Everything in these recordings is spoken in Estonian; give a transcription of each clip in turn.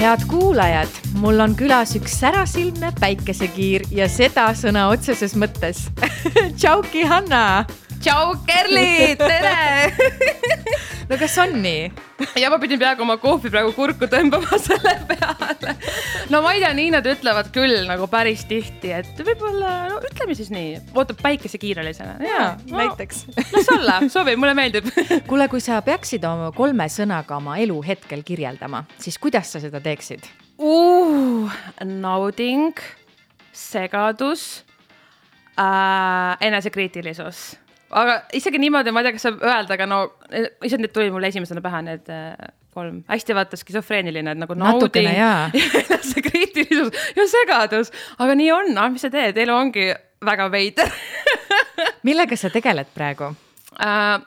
Head kuulajad, mul on külas üks särasilmne päikesekiir ja seda sõna otseses mõttes. Tšauki, Hanna! Tšau, Kerli! Tere! No kas on nii? Ja ma pidin peaaegu oma kohvi praegu kurku tõmbama selle peale. No ma ei tea, nii nad ütlevad küll nagu päris tihti, et võib-olla, no ütleme siis nii, ootab päikesekiiralisena. Jaa, näiteks. Las olla, sobi, mulle meeldib. Kuule, kui sa peaksid oma 3 sõnaga oma elu hetkel kirjeldama, siis kuidas sa seda teeksid? Nauding, segadus, enesekriitilisus. Aga isegi niimoodi, ma ei tea, kas saab öelda, aga no, isegi nüüd tuli mulle esimesena pähe need 3. Hästi vaata skisofreeniline, et nagu natukene, nauding, see kriitilisus ja segadus. Aga nii on, mis sa teed? Elu ongi väga veider. Millega sa tegeled praegu?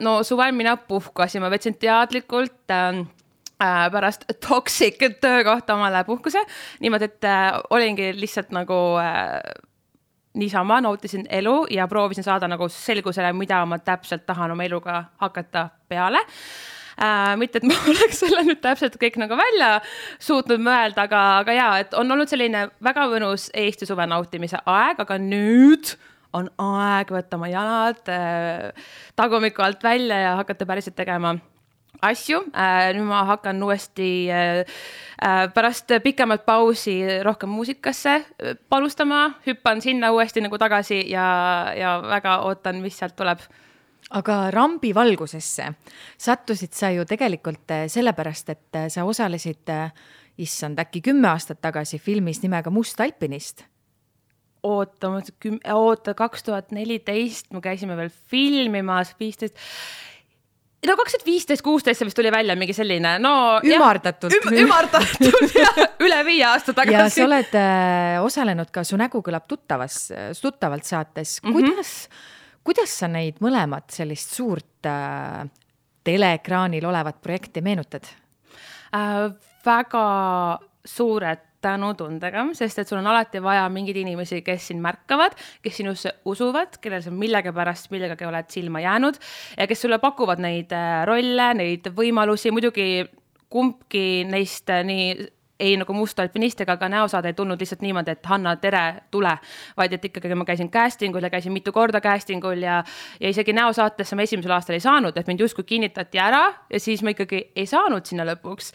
No suvel mina puhkasin, ma võtsin teadlikult pärast toxic töökohta omale puhkuse. Niimoodi, et olingi lihtsalt nagu niisama nautisin elu ja proovisin saada nagu selgusele, mida ma täpselt tahan oma eluga hakata peale. Mitte, et ma oleks selle nüüd täpselt kõik nagu välja suutnud mõelda, aga jaa, et on olnud selline väga mõnus Eesti suve nautimise aeg, aga nüüd on aeg võtta oma jalad tagumiku alt välja ja hakata päriselt tegema asju. Nüüd ma hakkan uuesti pärast pikemat pausi rohkem muusikasse panustama, hüppan sinna uuesti nagu tagasi ja väga ootan, mis sealt tuleb. Aga rambi valgusesse sattusid sa ju tegelikult sellepärast, et sa osalesid, issand, äkki 10 aastat tagasi filmis nimega Must alpinist. Oota, 2014 me käisime veel filmimas, 15... No 2015-16 vist tuli välja mingi selline, no... Ümardatult. Ümardatult, ja üle 5 aasta tagasi. Ja sa oled osalenud ka Su nägu kõlab tuttavalt saates. Kuidas sa neid mõlemad sellist suurt teleekraanil olevat projekti meenutad? Väga suured tänutundega, sest et sul on alati vaja mingid inimesi, kes sind märkavad, kes sinusse usuvad, kellel sa millega pärast millegagi oled silma jäänud ja kes sulle pakuvad neid rolle, neid võimalusi. Muidugi kumbki neist nii ei nagu Must alpinist ega ka näosaade ei tulnud lihtsalt niimoodi, et Hanna, tere, tule. Vaid et ikkagi ma käisin castingul ja käisin mitu korda castingul ja isegi näosaatesse ma esimesel aastal ei saanud, et mind justkui kinnitati ära ja siis ma ikkagi ei saanud sinna lõpuks.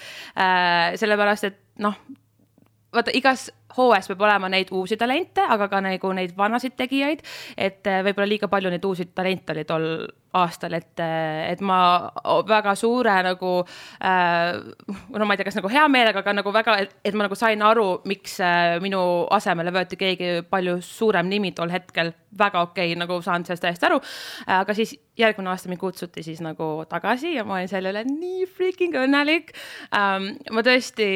Sellepärast, et noh, vaata, igas hooes peab olema neid uusi talente, aga ka nagu neid vanasid tegijaid, et võib-olla liiga palju neid uusi talente oli tol aastal, et ma väga suure nagu, no ma ei tea, kas nagu hea meelega, aga nagu väga, et ma nagu sain aru, miks minu asemele võeti keegi palju suurem nimi tol hetkel, väga okei, nagu saan sellest täiesti aru, aga siis järgmine aasta mind kutsuti siis nagu tagasi ja ma olin selle üle nii freaking õnnelik. Ma tõesti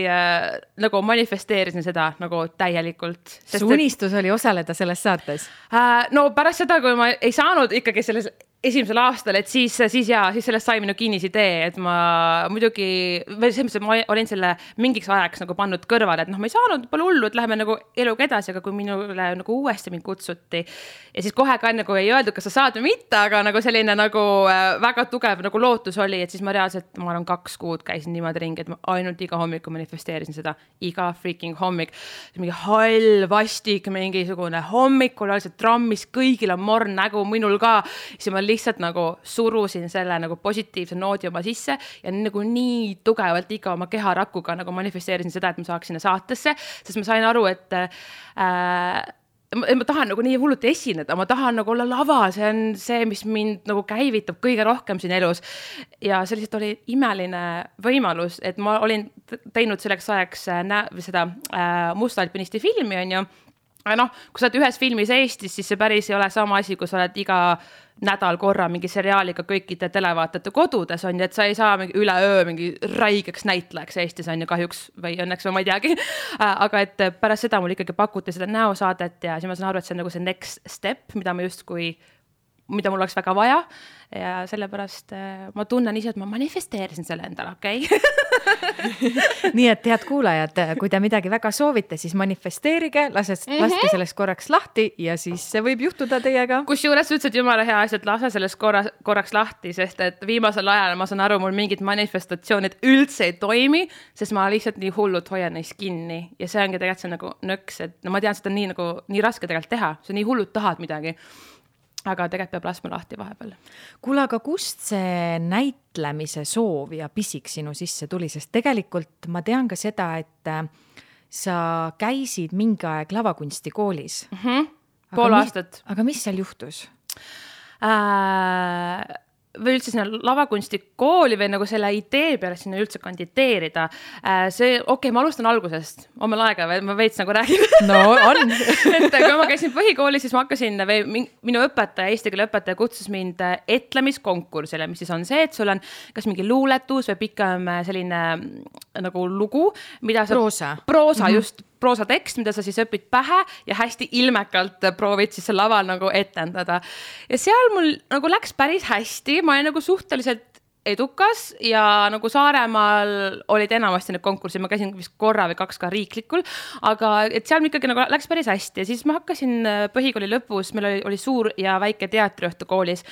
nagu manifesteerisin seda nagu täielikult. Su unistus oli osaleda selles saates? No pärast seda, kui ma ei saanud ikkagi selles esimesel aastal, et siis sellest sai minu kinnisidee, et ma muidugi, ma olin selle mingiks ajaks nagu pannud kõrvale, et noh, ma ei saanud, pole hullu, et läheme nagu eluga edasi, aga kui minule nagu uuesti mind kutsuti ja siis kohe ka nagu ei öeldud, kas sa saad või mitte, aga nagu selline nagu väga tugev nagu lootus oli, et siis ma reaalselt, ma olen 2 kuud käisin niimoodi ringi, et ma ainult iga hommiku manifesteerisin seda, iga freaking hommik, mingi hall, vastik, mingisugune hommikul, oli see trammis, kõigil on morn nägu, minul ka, siis ma lihtsalt nagu surusin selle nagu positiivse noodi oma sisse ja nagu nii tugevalt iga oma keharakuga nagu manifesteerisin seda, et ma saaks sinna saatesse, sest ma sain aru, et ma tahan nagu nii hulluti esineda, ma tahan nagu olla lava, see on see, mis mind nagu käivitab kõige rohkem siin elus ja see lihtsalt oli imeline võimalus, et ma olin teinud selleks ajaks seda Must alpinisti filmi, on ju. Noh, kui sa oled ühes filmis Eestis, siis see päris ei ole sama asi, kui sa oled iga nädal korra mingi seriaaliga kõikide televaatajate kodudes on, et sa ei saa mingi üleöö mingi raigeks näitlejaks Eestis on ju kahjuks või õnneks või ma ei teagi. Aga et pärast seda mul ikkagi pakuti seda näosaadet ja siis ma saan aru, et see on nagu see next step, mida mul oleks väga vaja ja sellepärast ma tunnen ise, et ma manifesteerisin selle endale, okei? nii et head kuulajad, kui te midagi väga soovite, siis manifesteerige, laske sellest korraks lahti ja siis see võib juhtuda teiega. Kusjuures ütlesid jumala hea asja, et lase sellest korraks lahti, sest et viimasel ajal ma saan aru, mul mingid manifestatsioonid üldse ei toimi, sest ma lihtsalt nii hullult hoian neist kinni ja see ongi tegelikult see nagu nõks, et no ma tean, seda nii raske tegelikult teha, see nii hullult tahad midagi. Aga tegelikult peab laskma lahti vahepeal. Kuule, aga kust see näitlemise soov ja pisik sinu sisse tuli? Sest tegelikult ma tean ka seda, et sa käisid mingi aeg lavakunstikoolis. Pool aastat. Aga mis seal juhtus? Või üldse sinna lavakunstikooli või nagu selle idee peale sinna üldse kandideerida. Ma alustan algusest. On meil aega või? Ma veits nagu räägin. No on. Et kui ma käisin põhikoolis, siis ma hakkasin, minu õpetaja, eesti keele õpetaja kutsus mind etlemiskonkursile, mis siis on see, et sul on kas mingi luuletus või pikem selline nagu lugu, mida sa... Proosa, just. Proosa tekst, mida sa siis õpid pähe ja hästi ilmekalt proovid siis laval nagu etendada. Ja seal mul nagu läks päris hästi, ma olin nagu suhteliselt edukas ja nagu Saaremaal olid enamasti need konkursid, ma käisin vist korra või 2 ka riiklikul, aga et seal ikkagi nagu läks päris hästi ja siis ma hakkasin põhikooli lõpus, meil oli suur ja väike teatriõhtu koolis,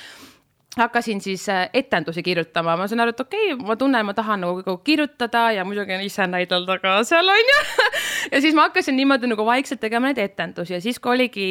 hakkasin siis etendusi kirjutama. Ma saan aru, et ma tunnen, ma tahan nagu kirjutada ja muidugi ise näidelda ka seal on ju. Ja siis ma hakkasin niimoodi nagu vaikselt tegema neid etendusi ja siis kui oligi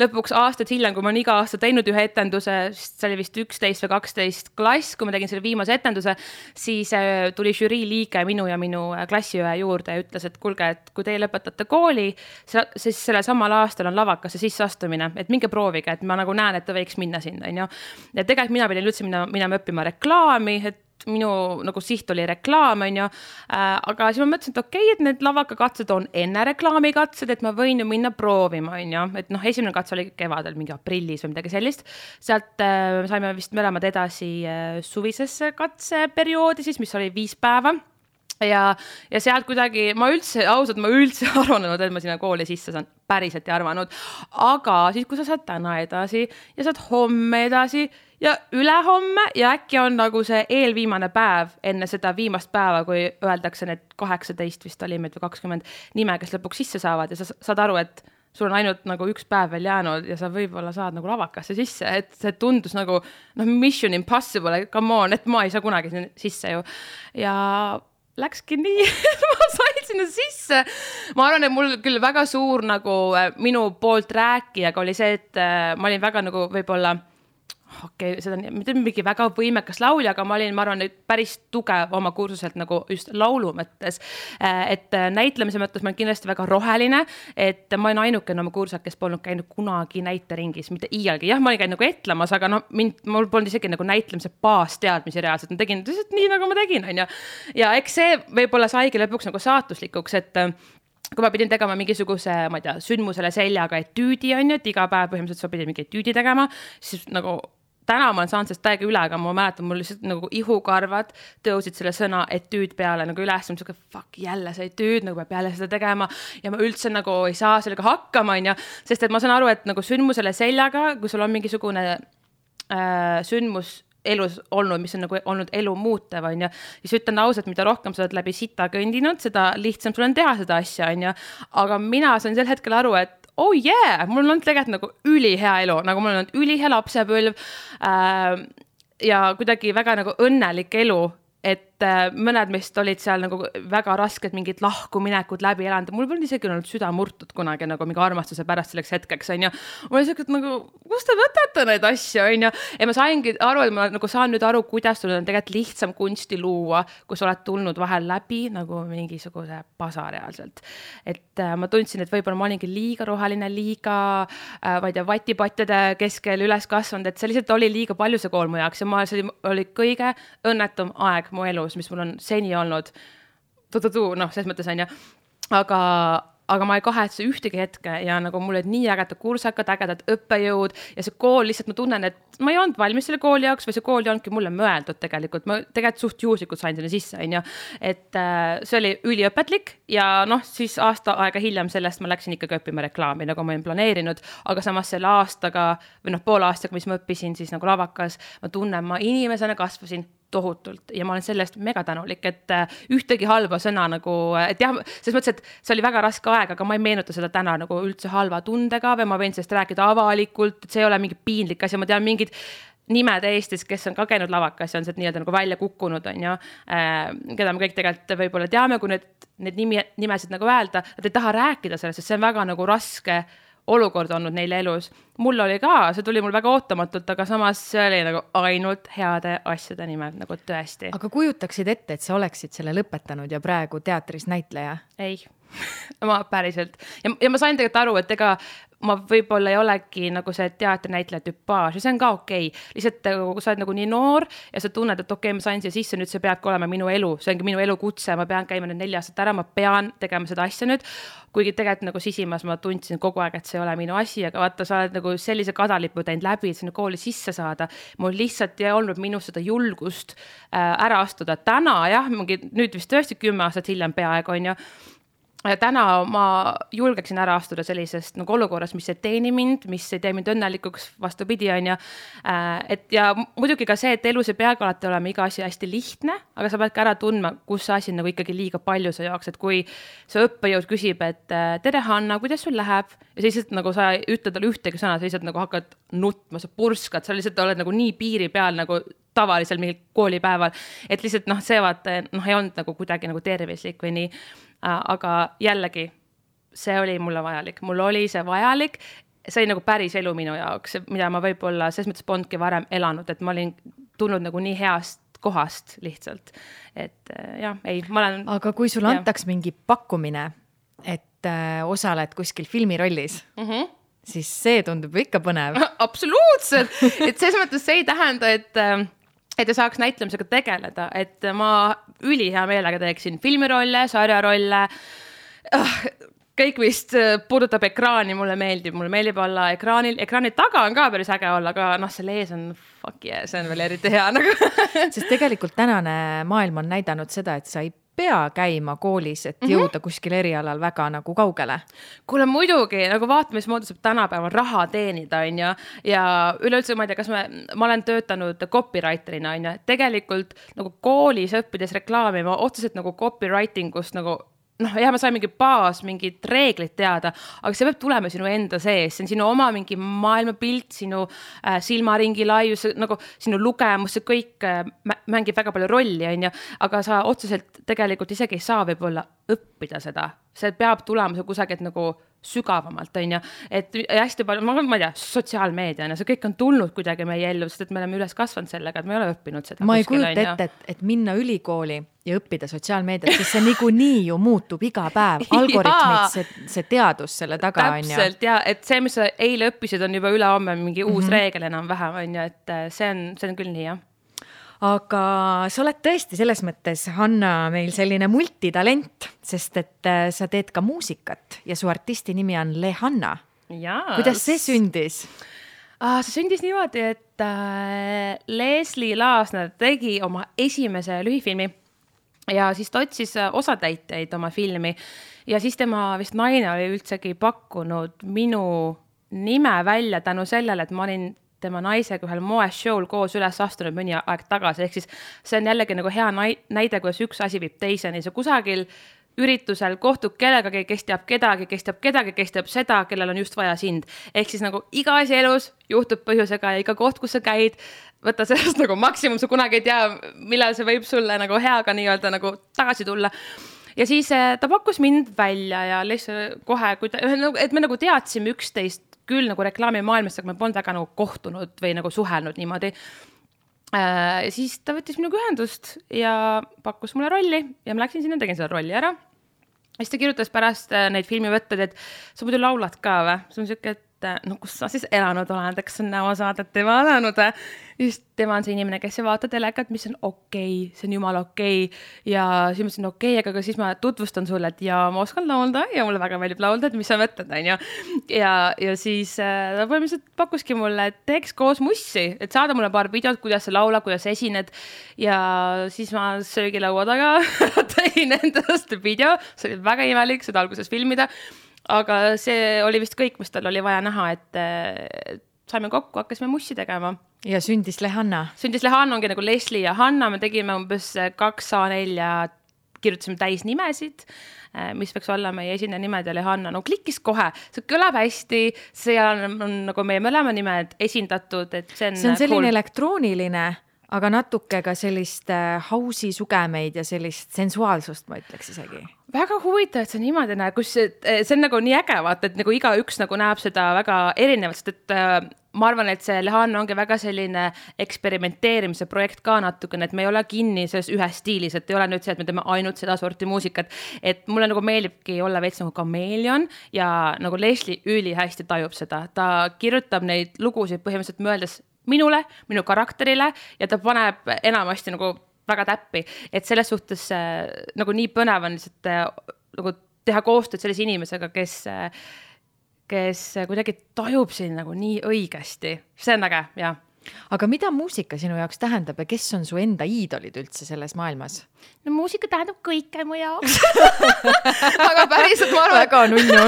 lõpuks aastad hiljem, kui ma olen iga aasta teinud ühe etenduse, see oli vist 11 või 12 klass, kui ma tegin selle viimase etenduse, siis tuli žürii liige minu ja minu klassiõe juurde ja ütles, et kuulge, et kui teie lõpetate kooli, siis sellel samal aastal on lavakasse sisseastumine, et minge proovige, et ma nagu näen, et ta võiks minna sinna. Ja tegelikult mina pidin üldse minema õppima reklaami, et minu nagu siht oli reklaam, on ju. Aga siis ma mõtlesin, et et need lavakakatsed on enne reklaamikatsed, et ma võin ju minna proovima, on ju. Et esimene katse oli kevadel, mingi aprillis või midagi sellist. Sealt saime vist mõlemad edasi suvisesse katseperioodi, siis, mis oli 5 päeva. Ja sealt kuidagi, ma üldse arvanud, et ma sinna kooli sisse saan, päriselt ei arvanud. Aga siis, kui sa saad täna edasi ja saad homme edasi ja ülehomme ja äkki on nagu see eelviimane päev enne seda viimast päeva, kui öeldakse need 18 vist oli meid või 20 nime, kes lõpuks sisse saavad ja sa saad aru, et sul on ainult nagu 1 päev veel jäänud ja sa võib-olla saad nagu lavakasse sisse, et see tundus nagu mission impossible, come on, et ma ei saa kunagi sisse ju. Ja läkski nii, ma sain sinna sisse. Ma arvan, et mul küll väga suur nagu minu poolt rääkijaga oli see, et ma olin väga nagu võib-olla seda on mingi väga võimekas laulja, aga ma arvan, päris tugev oma kursuselt nagu just laulu mõttes. Et näitlemise mõttes ma olen kindlasti väga roheline, et ma olen ainukene oma kursuselt, kes polnud käinud kunagi näiteringis, mitte iialgi. Jah, ma olin käinud nagu etlemas, aga mul polnud isegi nagu näitlemise baasteadmisi reaalselt. Ma tegin nii, nagu ma tegin, on ju. Ja eks see võib-olla saigi lõpuks nagu saatuslikuks, et kui ma pidin tegema mingisuguse, ma ei tea, sündmusele seljaga etüüdi, on ju, et iga päev põhimõtteliselt sa pidin mingi etüüdi tegema, siis nagu täna ma olen saanud sellest täiega üle, aga ma mäletan, mul lihtsalt nagu ihukarvad tõusid selle sõna etüüd peale nagu üles, fuck, jälle see etüüd, nagu peab jälle seda tegema ja ma üldse nagu ei saa sellega hakkama, on ju, sest et ma saan aru, et nagu sündmusele seljaga, kui sul on mingisugune sündmus elus olnud, mis on nagu olnud elu muutev, on ju, siis ütlen ausalt, mida rohkem sa oled läbi sita kõndinud, seda lihtsam sul on teha seda asja, on ju, aga mina sain sel hetkel aru, et oh yeah, mul on tegelikult nagu ülihea elu, nagu mul on ülihea lapsepõlv ja kuidagi väga nagu õnnelik elu, et mõned meist olid seal nagu väga rasked mingid lahkuminekud läbi elanud. Mul polnud isegi olnud süda murtud kunagi nagu mingi armastuse pärast selleks hetkeks, on ju. Mul oli selline nagu, kust te võtate neid asju, on ju. Ja ma saingi aru, et ma nagu saan nüüd aru, kuidas sul on tegelikult lihtsam kunsti luua, kui sa oled tulnud vahel läbi nagu mingisuguse pasa reaalselt. Et ma tundsin, et võib-olla ma olingi liiga roheline, liiga ma ei tea, vatipatjade keskel üles kasvanud, et see lihtsalt oli liiga palju see kool mu jaoks ja see oli kõige õnnetum aeg mu elus, mis mul on seni olnud, selles mõttes on ju, aga ma ei kahetse ühtegi hetke ja nagu mul olid nii ägedad kursakad, ägedad õppejõud ja see kool lihtsalt ma tunnen, et ma ei olnud valmis selle kooli jaoks või see kool ei olnudki mulle mõeldud tegelikult, ma tegelikult suht juhuslikult sain sinna sisse, on ju, et see oli üliõpetlik ja siis aasta aega hiljem sellest ma läksin ikkagi õppima reklaami, nagu ma olin planeerinud, aga samas selle aastaga või poole aastaga, mis ma õppisin siis nagu lavakas, ma tunnen, ma inimesena kasvasin tohutult ja ma olen sellest mega tänulik, et ühtegi halba sõna nagu, et jah, selles mõttes, et see oli väga raske aeg, aga ma ei meenuta seda täna nagu üldse halva tundega või ma võin sellest rääkida avalikult, et see ei ole mingi piinlik asi, ma tean mingid nimed Eestis, kes on ka käinud lavakas ja on sealt nii-öelda nagu välja kukkunud, on ju, keda me kõik tegelikult võib-olla teame, kui need nimesid nagu öelda, nad ei taha rääkida sellest, sest see on väga nagu raske olukord olnud neile elus. Mul oli ka, see tuli mul väga ootamatult, aga samas see oli nagu ainult heade asjade nimed, nagu tõesti. Aga kujutaksid ette, et sa oleksid selle lõpetanud ja praegu teatris näitleja? Ei, ma päriselt. Ja ma sain tegelikult aru, et ega ma võib-olla ei olegi nagu see teatrinäitleja tüpaaž ja see on ka okei. Lihtsalt kui sa oled nagu nii noor ja sa tunned, et okei, ma sain siia sisse, nüüd see peabki olema minu elu, see ongi minu elu kutse, ma pean käima nüüd 4 aastat ära, ma pean tegema seda asja nüüd, kuigi tegelikult nagu sisimas ma tundsin kogu aeg, et see ei ole minu asi, aga vaata, sa oled nagu sellise kadalipu teinud läbi, et sinna kooli sisse saada. Mul lihtsalt ei olnud minus seda julgust ära astuda. Täna jah, nüüd vist tõesti 10 aastat hiljem peaaegu on ju, ja täna ma julgeksin ära astuda sellisest nagu olukorras, mis ei teeni mind, mis ei tee mind õnnelikuks, vastupidi on ju. Et ja muidugi ka see, et elus ei peagi alati olema iga asi hästi lihtne, aga sa pead ka ära tundma, kus see asi nagu ikkagi liiga palju sa jaoks, et kui see õppejõud küsib, et tere Hanna, kuidas sul läheb? Ja sa lihtsalt nagu sa ütled talle ühtegi sõna, sa lihtsalt nagu hakkad nutma, sa purskad, sa lihtsalt oled nagu nii piiri peal nagu tavalisel mingil koolipäeval, et lihtsalt see vaata, ei olnud nagu kuidagi nagu tervislik või nii. Aga jällegi, see oli mulle vajalik. Mul oli see vajalik, see oli nagu päris elu minu jaoks, mida ma võib-olla selles mõttes polnudki varem elanud, et ma olin tulnud nagu nii heast kohast lihtsalt. Et jah, ei, ma olen... Aga kui sul antaks mingi pakkumine, et osaled kuskil filmirollis, siis see tundub ikka põnev. Absoluutselt! Et selles mõttes see ei tähenda, et ta saaks näitlemisega tegeleda, et ma ülihea meelega teeksin filmirolle, sarjarolle, kõik vist puudutab ekraani, mulle meeldib olla ekraanil, ekraani taga on ka päris äge olla, aga selle ees on fuck yeah, see on veel eriti hea nagu. Sest tegelikult tänane maailm on näidanud seda, et sa ei pea käima koolis, et jõuda kuskil erialal väga nagu kaugele. Kuule muidugi, nagu vaatame, mis moodi saab tänapäeval raha teenida, on ju, ja üleüldse ma ei tea, kas ma olen töötanud copywriterina, on ju, tegelikult nagu koolis õppides reklaami, ma otseselt nagu copywritingust nagu ma sain mingi baas, mingid reeglid teada, aga see peab tulema sinu enda sees, see on sinu oma mingi maailmapilt, sinu silmaringi laius, nagu sinu lugemus, see kõik mängib väga palju rolli, on ju, aga sa otseselt tegelikult isegi ei saa võib-olla õppida seda, see peab tulema see kusagilt nagu sügavamalt, on ju, et hästi palju, ma ei tea, sotsiaalmeedia, see kõik on tulnud kuidagi meie ellu, sest et me oleme üles kasvanud sellega, et me ei ole õppinud seda. Ma ei kujuta ette, et minna ülikooli ja õppida sotsiaalmeediat, sest see niikuinii ju muutub iga päev, algoritmid, see teadus selle taga on ju. Täpselt, ja et see, mis sa eile õppisid, on juba ülehomme mingi uus reegel enam vähem, on ju, et see on küll nii, jah. Aga sa oled tõesti selles mõttes, Hanna, meil selline multitalent, sest et sa teed ka muusikat ja su artisti nimi on Lehanna. Kuidas see sündis? See sündis niimoodi, et Leslie Laasner tegi oma esimese lühifilmi ja siis ta otsis osatäitjaid oma filmi ja siis tema vist naine oli üldsegi pakkunud minu nime välja tänu sellele, et ma olin tema naisega ühel moeshow'l koos üles astunud mõni aeg tagasi, ehk siis see on jällegi nagu hea näide, kuidas üks asi viib teiseni, see kusagil üritusel kohtub kellegagi, kes teab kedagi, kes teab seda, kellel on just vaja sind. Ehk siis nagu iga asi elus juhtub põhjusega ja iga koht, kus sa käid, võtta sellest nagu maksimum, sa kunagi ei tea, millal see võib sulle nagu heaga nii-öelda nagu tagasi tulla. Ja siis ta pakkus mind välja ja lihtsalt kohe, et me nagu teadsime üksteist küll nagu reklaami maailmast, aga me polnud väga nagu kohtunud või nagu suhelnud niimoodi. Ja siis ta võttis minuga ühendust ja pakkus mulle rolli ja ma läksin sinna, tegin selle rolli ära. Ja siis ta kirjutas pärast neid filmivõtted, et sa muidu laulad ka või? See on siuke, et kus sa siis elanud oled, eks on näosaadet ei vaadanud. Just tema on see inimene, kes ei vaata telekat, mis on okei, see on jumala okei. Ja siis mõtlesin okei, aga siis ma tutvustan sulle, et ja ma oskan laulda ja mulle väga meeldib laulda, et mis sa mõtled, on ju. Ja siis ta põhimõtteliselt pakkuski mulle, et teeks koos mussi, et saada mulle paar videot, kuidas sa laula, kuidas esined. Ja siis ma söögilaua taga tegin endast video, see oli väga imelik seda alguses filmida. Aga see oli vist kõik, mis tal oli vaja näha, et saime kokku, hakkasime mussi tegema Ja sündis Lehanna. Sündis Lehanna ongi nagu Leslie ja Hanna, me tegime umbes 2 A4 kirjutasime täis nimesid, mis võiks olla meie esimene nimed ja Lehanna, no klikkis kohe, see kõlab hästi, seal on nagu meie mõlema nimed esindatud, et see on selline elektrooniline, aga natuke ka sellist house'i sugemeid ja sellist sensuaalsust, ma ütleks isegi. Väga huvitav, et see niimoodi näeb, kus see on nagu nii äge, vaata, et nagu iga üks nagu näeb seda väga erinevalt, sest et ma arvan, et see Lehanna ongi väga selline eksperimenteerimise projekt ka natukene, et me ei ole kinni selles ühes stiilis, et ei ole nüüd see, et me teeme ainult seda sorti muusikat, et mulle nagu meeldibki olla veits nagu kameelion ja nagu Leslie üli hästi tajub seda, ta kirjutab neid lugusid põhimõtteliselt mõeldes minule, minu karakterile ja ta paneb enamasti nagu väga täppi, et selles suhtes nagu nii põnev on lihtsalt nagu teha koostööd sellise inimesega, kes kuidagi tajub siin nagu nii õigesti. See on äge, jah. Aga mida muusika sinu jaoks tähendab ja kes on su enda iidolid üldse selles maailmas? No muusika tähendab kõike mu jaoks. Aga päriselt ma arvan... Väga nunnu.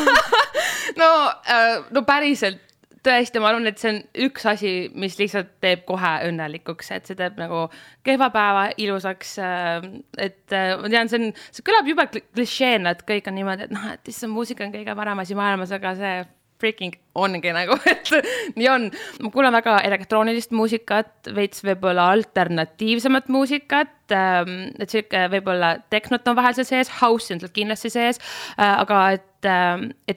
No päriselt tõesti, ma arvan, et see on üks asi, mis lihtsalt teeb kohe õnnelikuks, et see teeb nagu kehva päeva ilusaks, et ma tean, see kõlab juba klišeena, et kõik on niimoodi, et et see muusika on kõige parem asi maailmas, aga see freaking ongi nagu, et nii on. Ma kuulen väga elektroonilist muusikat, veits võib-olla alternatiivsemat muusikat, et siuke võib-olla tehnot on vahel sees, house on kindlasti sees, aga et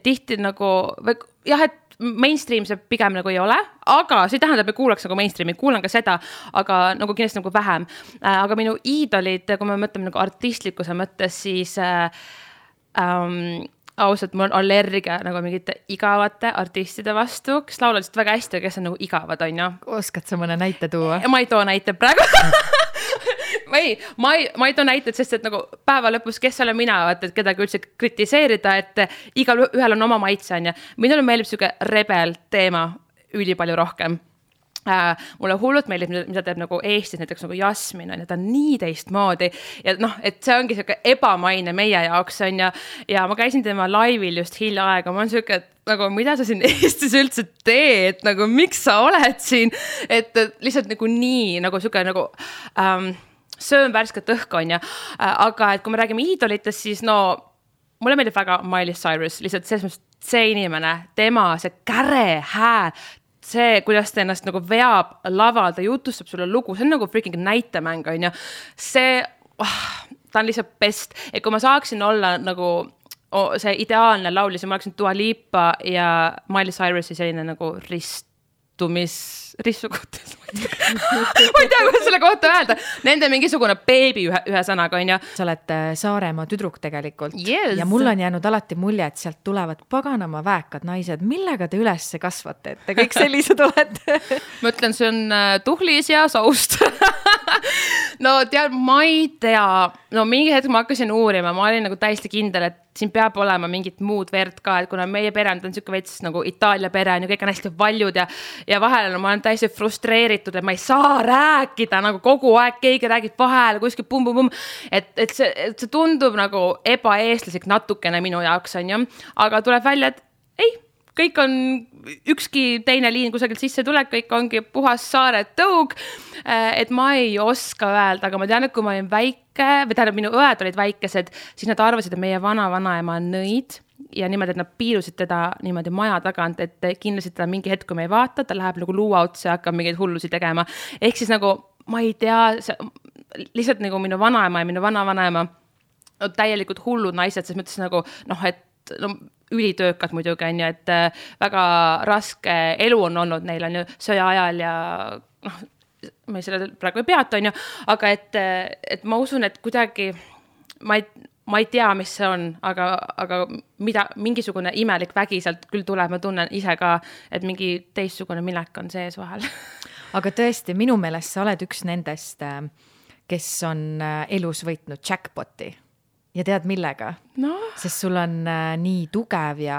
tihti nagu, jah, et mainstream see pigem nagu ei ole, aga see tähendab, et kuulaks nagu mainstreami, kuulan ka seda, aga nagu kindlasti nagu vähem. Aga minu iidolid, kui me mõtleme nagu artistlikkuse mõttes, siis ausalt, mul on allergia nagu mingite igavate artistide vastu, kes laulavad väga hästi, kes on nagu igavad, on ju. Oskad sa mõne näite tuua? Ma ei too näite praegu. Ma ei too näited, sest et nagu päeva lõpus, kes olen mina, et kedagi üldse kritiseerida, et igal ühel on oma maitse, on ja minule meeldib siuke rebel teema üli palju rohkem. Mulle hullult meeldib, mida teeb nagu Eestis näiteks nagu Jasmin, on ja ta on nii teistmoodi ja et see ongi siuke ebamaine meie jaoks, on ja ma käisin tema laivil just hiljaaega, ma on siuke, et nagu mida sa siin Eestis üldse teed, nagu miks sa oled siin, et lihtsalt nagu nii, nagu siuke nagu söön värsket õhku, on ja, aga et kui me räägime iidolitest, siis no mulle meeldib väga Miley Cyrus, lihtsalt see inimene, tema, see käre hääl, see, kuidas ta ennast nagu veab laval, ta jutustab sulle lugu, see on nagu freaking näitemäng, on ja see, ta on lihtsalt best, et kui ma saaksin olla nagu see ideaalne laulja, siis ma oleksin Dua Lipa ja Miley Cyrusi selline nagu rissukutes. Ma ei tea, kuidas selle kohta öelda. Nende mingisugune beebi ühe sõnaga, on ja. Sa oled Saaremaa tüdruk tegelikult. Yes. Ja mul on jäänud alati mulje, et sealt tulevad paganama väekad naised. Millega te üles kasvate? Et te kõik sellised olete? Ma ütlen, see on tuhlis ja saust. No tead, ma ei tea. No mingi hetk ma hakkasin uurima. Ma olin nagu täiesti kindel, et siin peab olema mingit muud verd ka, et kuna meie pere on siuke veits nagu Itaalia pere ja kõik on hästi valjud ja vahel ma olen täiesti frustreeritud, et ma ei saa rääkida nagu kogu aeg, keegi räägib vahel kuskil pum-pum-pum, et see tundub nagu ebaeestlaslik natukene minu jaoks, on ju, aga tuleb välja, et ei, kõik on ükski teine liin kusagilt sisse tuleb, kõik ongi puhas saare tõug, et ma ei oska öelda, aga ma tean, et kui ma olin väike, või tähendab, minu õed olid väikesed, siis nad arvasid, et meie vanaema on nõid ja niimoodi, et nad piilusid teda niimoodi maja tagant, et kindlasti teda mingi hetk, kui me ei vaata, ta läheb nagu luua otsa ja hakkab mingeid hullusi tegema. Ehk siis nagu, ma ei tea, lihtsalt nagu minu vanaema ja minu vanavanaema täielikult hullud naised, selles mõttes nagu, et ülitöökad muidugi on ju, et väga raske elu on olnud neil on ju sõja ajal ja me selle praegu ei peata, on ju, aga et ma usun, et kuidagi ma ei tea, mis see on, aga mingisugune imelik vägi sealt küll tuleb, ma tunnen ise ka, et mingi teistsugune minek on sees vahel. Aga tõesti, minu meelest sa oled üks nendest, kes on elus võitnud jackpoti. ja tead millega? No. Sest sul on nii tugev ja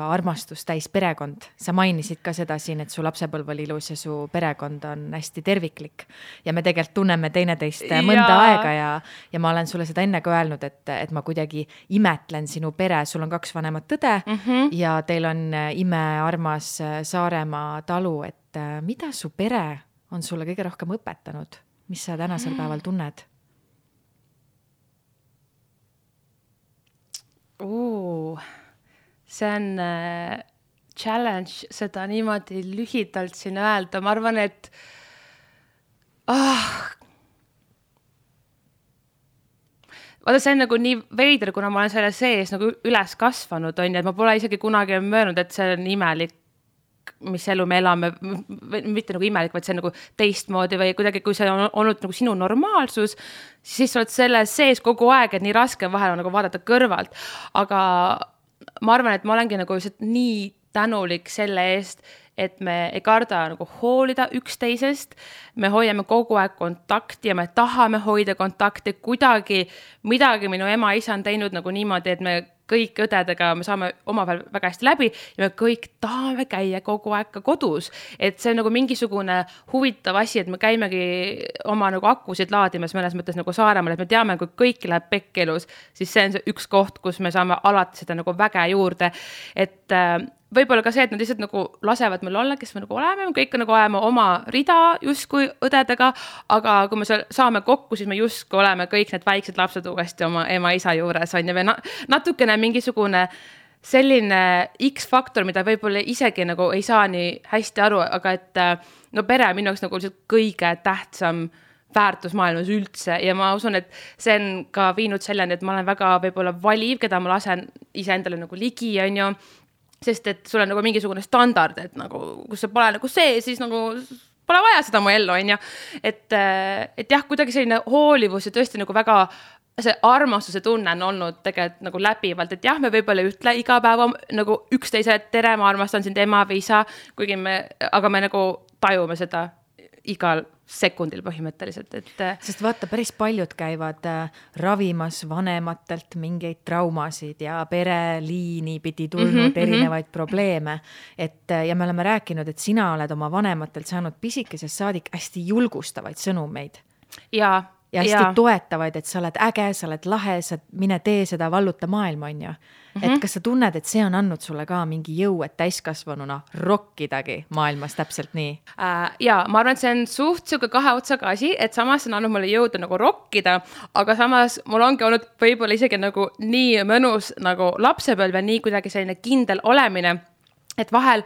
armastus täis perekond. Sa mainisid ka seda siin, et su lapsepõlv oli ilus ja su perekond on hästi terviklik. Ja me tegelikult tunneme teineteist mõnda aega ja ma olen sulle seda enne ka öelnud, et ma kuidagi imetlen sinu pere. Sul on 2 vanemat tõde ja teil on imearmas Saaremaa talu, et mida su pere on sulle kõige rohkem õpetanud? Mis sa tänasel päeval tunned? See on challenge seda niimoodi lühidalt siin öelda. Ma arvan, et vaata, see on nagu nii veider, kuna ma olen selle sees nagu üles kasvanud, on, et ma pole isegi kunagi möönud, et see on imelik, mis elu me elame, mitte nagu imelik, vaid see on nagu teistmoodi või kuidagi, kui see on olnud nagu sinu normaalsus, siis sa oled selle sees kogu aeg, et nii raske vahel on nagu vaadata kõrvalt. Aga ma arvan, et ma olengi nagu nii tänulik selle eest, et me ei karda nagu hoolida üksteisest, me hoiame kogu aeg kontakti ja me tahame hoida kontakti kuidagi, midagi minu ema isa on teinud nagu niimoodi, et me kõik õdedega, me saame omavahel väga hästi läbi ja me kõik tahame käia kogu aeg ka kodus. Et see on nagu mingisugune huvitav asi, et me käimegi oma nagu akusid laadimas mõnes mõttes nagu Saaremaal, et me teame, kui kõik läheb pekkelus, siis see on see üks koht, kus me saame alati seda nagu väge juurde. Et võib-olla ka see, et nad lihtsalt nagu lasevad meil olla, kes me nagu oleme, me kõik nagu ajame oma rida justkui õdedega, aga kui me saame kokku, siis me justkui oleme kõik need väiksed lapsed uuesti oma ema isa juures, on ja me natukene mingisugune selline X-faktor, mida võib-olla isegi nagu ei saa nii hästi aru, aga et no pere minu jaoks nagu kõige tähtsam väärtus maailmas üldse ja ma usun, et see on ka viinud selleni, et ma olen väga võib-olla valiv, keda ma lasen iseendale nagu ligi, on ju, sest et sul on nagu mingisugune standard, et nagu, kus sa pole nagu see, siis nagu pole vaja seda mu ellu, on ju. Et jah, kuidagi selline hoolivus ja tõesti nagu väga see armastuse tunne on olnud tegelikult nagu läbivalt, et jah, me võib-olla ütle iga päeva nagu üksteise tere, ma armastan sind ema või isa, kuigi aga me nagu tajume seda igal sekundil põhimõtteliselt, et sest vaata, päris paljud käivad ravimas vanematelt mingeid traumasid ja pereliini pidi tulnud erinevaid probleeme, ja me oleme rääkinud, et sina oled oma vanematelt saanud pisikesest saadik hästi julgustavaid sõnumeid ja hästi toetavaid, et sa oled äge, sa oled lahe, sa mine tee seda, valluta maailma, on ju. Et kas sa tunned, et see on andnud sulle ka mingi jõu, et täiskasvanuna rokkidagi maailmas täpselt nii? Ja ma arvan, et see on suht siuke 2 otsaga asi, et samas on andnud mulle jõuda nagu rokkida, aga samas mul ongi olnud võib-olla isegi nagu nii mõnus nagu lapsepõlv ja nii kuidagi selline kindel olemine, et vahel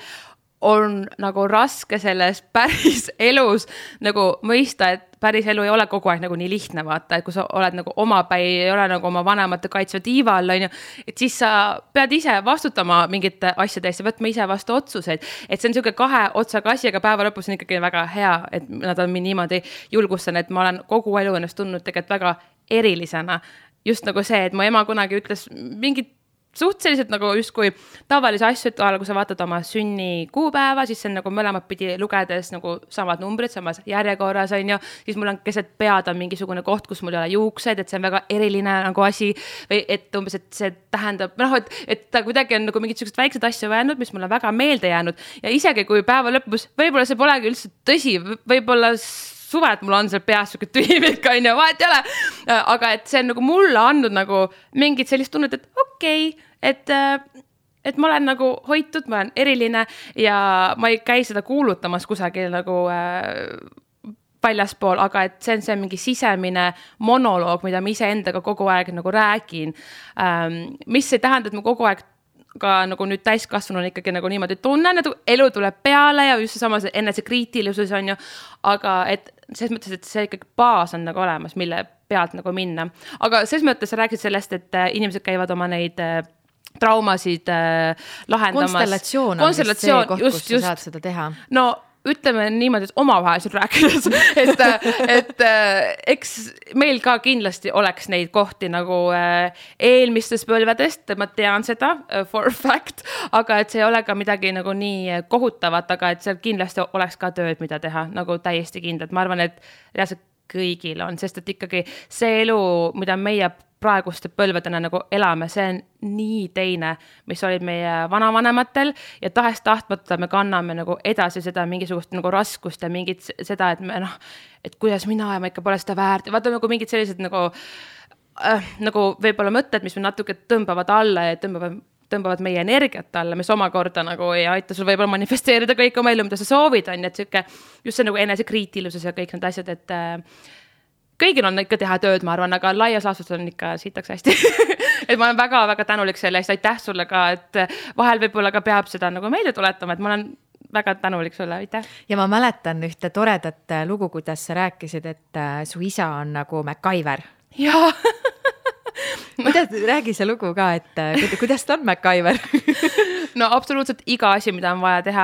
on nagu raske selles päris elus nagu mõista, et päris elu ei ole kogu aeg nagu nii lihtne, vaata, et kui sa oled nagu omapäi, ei ole nagu oma vanemate kaitsva tiiva all, on ju, et siis sa pead ise vastutama mingite asjade eest ja võtma ise vastu otsuseid, et see on niisugune 2 otsaga asi, aga päeva lõpus on ikkagi väga hea, et nad on mind niimoodi julgustan, et ma olen kogu elu ennast tundnud tegelikult väga erilisena, just nagu see, et mu ema kunagi ütles mingit suhteliselt nagu justkui tavalisi asju, et kui sa vaatad oma sünni kuupäeva, siis see on nagu mõlemad pidi lugedes nagu samad numbrid, samas järjekorras, on ju, siis mul on keset pead on mingisugune koht, kus mul ei ole juuksed, et see on väga eriline nagu asi, või et umbes, et see tähendab, et ta kuidagi on nagu mingid sellised väiksed asju öelnud, mis mulle väga meelde jäänud ja isegi kui päeva lõpus, võib-olla see polegi üldse tõsi, võib-olla suve, et mul on seal peas siuke tühimik, on ju, vahet ei ole, aga et see on nagu mulle andnud nagu mingit sellist tunnet, et okei, et ma olen nagu hoitud, ma olen eriline ja ma ei käi seda kuulutamas kusagil nagu väljaspool, aga et see on mingi sisemine monoloog, mida ma iseendaga kogu aeg nagu räägin, mis ei tähenda, et ma kogu aeg ka nagu nüüd täiskasvanuna ikkagi nagu niimoodi tunnen, et elu tuleb peale ja just samas enesekriitilisus on ju, aga et selles mõttes, et see ikkagi baas on nagu olemas, mille pealt nagu minna. Aga selles mõttes sa rääkisid sellest, et inimesed käivad oma neid traumasid lahendamas. Konstellatsioon on vist see koht, kus sa saad seda teha. No ütleme niimoodi, et omavahel rääkides, et eks meil ka kindlasti oleks neid kohti nagu eelmistest põlvedest, ma tean seda for fact, aga et see ei ole ka midagi nagu nii kohutavat, aga et seal kindlasti oleks ka tööd, mida teha, nagu täiesti kindlalt. Ma arvan, et reaalselt kõigil on, sest et ikkagi see elu, mida meie praeguste põlvedena nagu elame, see on nii teine, mis olid meie vanavanematel ja tahes-tahtmata me kanname nagu edasi seda mingisugust nagu raskust ja mingit seda, et me et kuidas mina ja ma ikka pole seda väärt ja vaata nagu mingid sellised nagu võib-olla mõtted, mis me natuke tõmbavad alla ja tõmbavad meie energiat alla, mis omakorda nagu ei aita sul võib-olla manifesteerida kõik oma elu, mida sa soovid, on, et siuke, just see nagu enesekriitilisus ja kõik need asjad, et kõigil on ikka teha tööd, ma arvan, aga laias laastus on ikka siitaks hästi. Et ma olen väga-väga tänulik selle eest, aitäh sulle ka, et vahel võib-olla ka peab seda nagu meelde tuletama, et ma olen väga tänulik sulle, aitäh. Ja ma mäletan ühte toredat lugu, kuidas sa rääkisid, et su isa on nagu MacGyver. Jaa. Räägi see lugu ka, et kuidas ta on MacGyver? No absoluutselt iga asi, mida on vaja teha,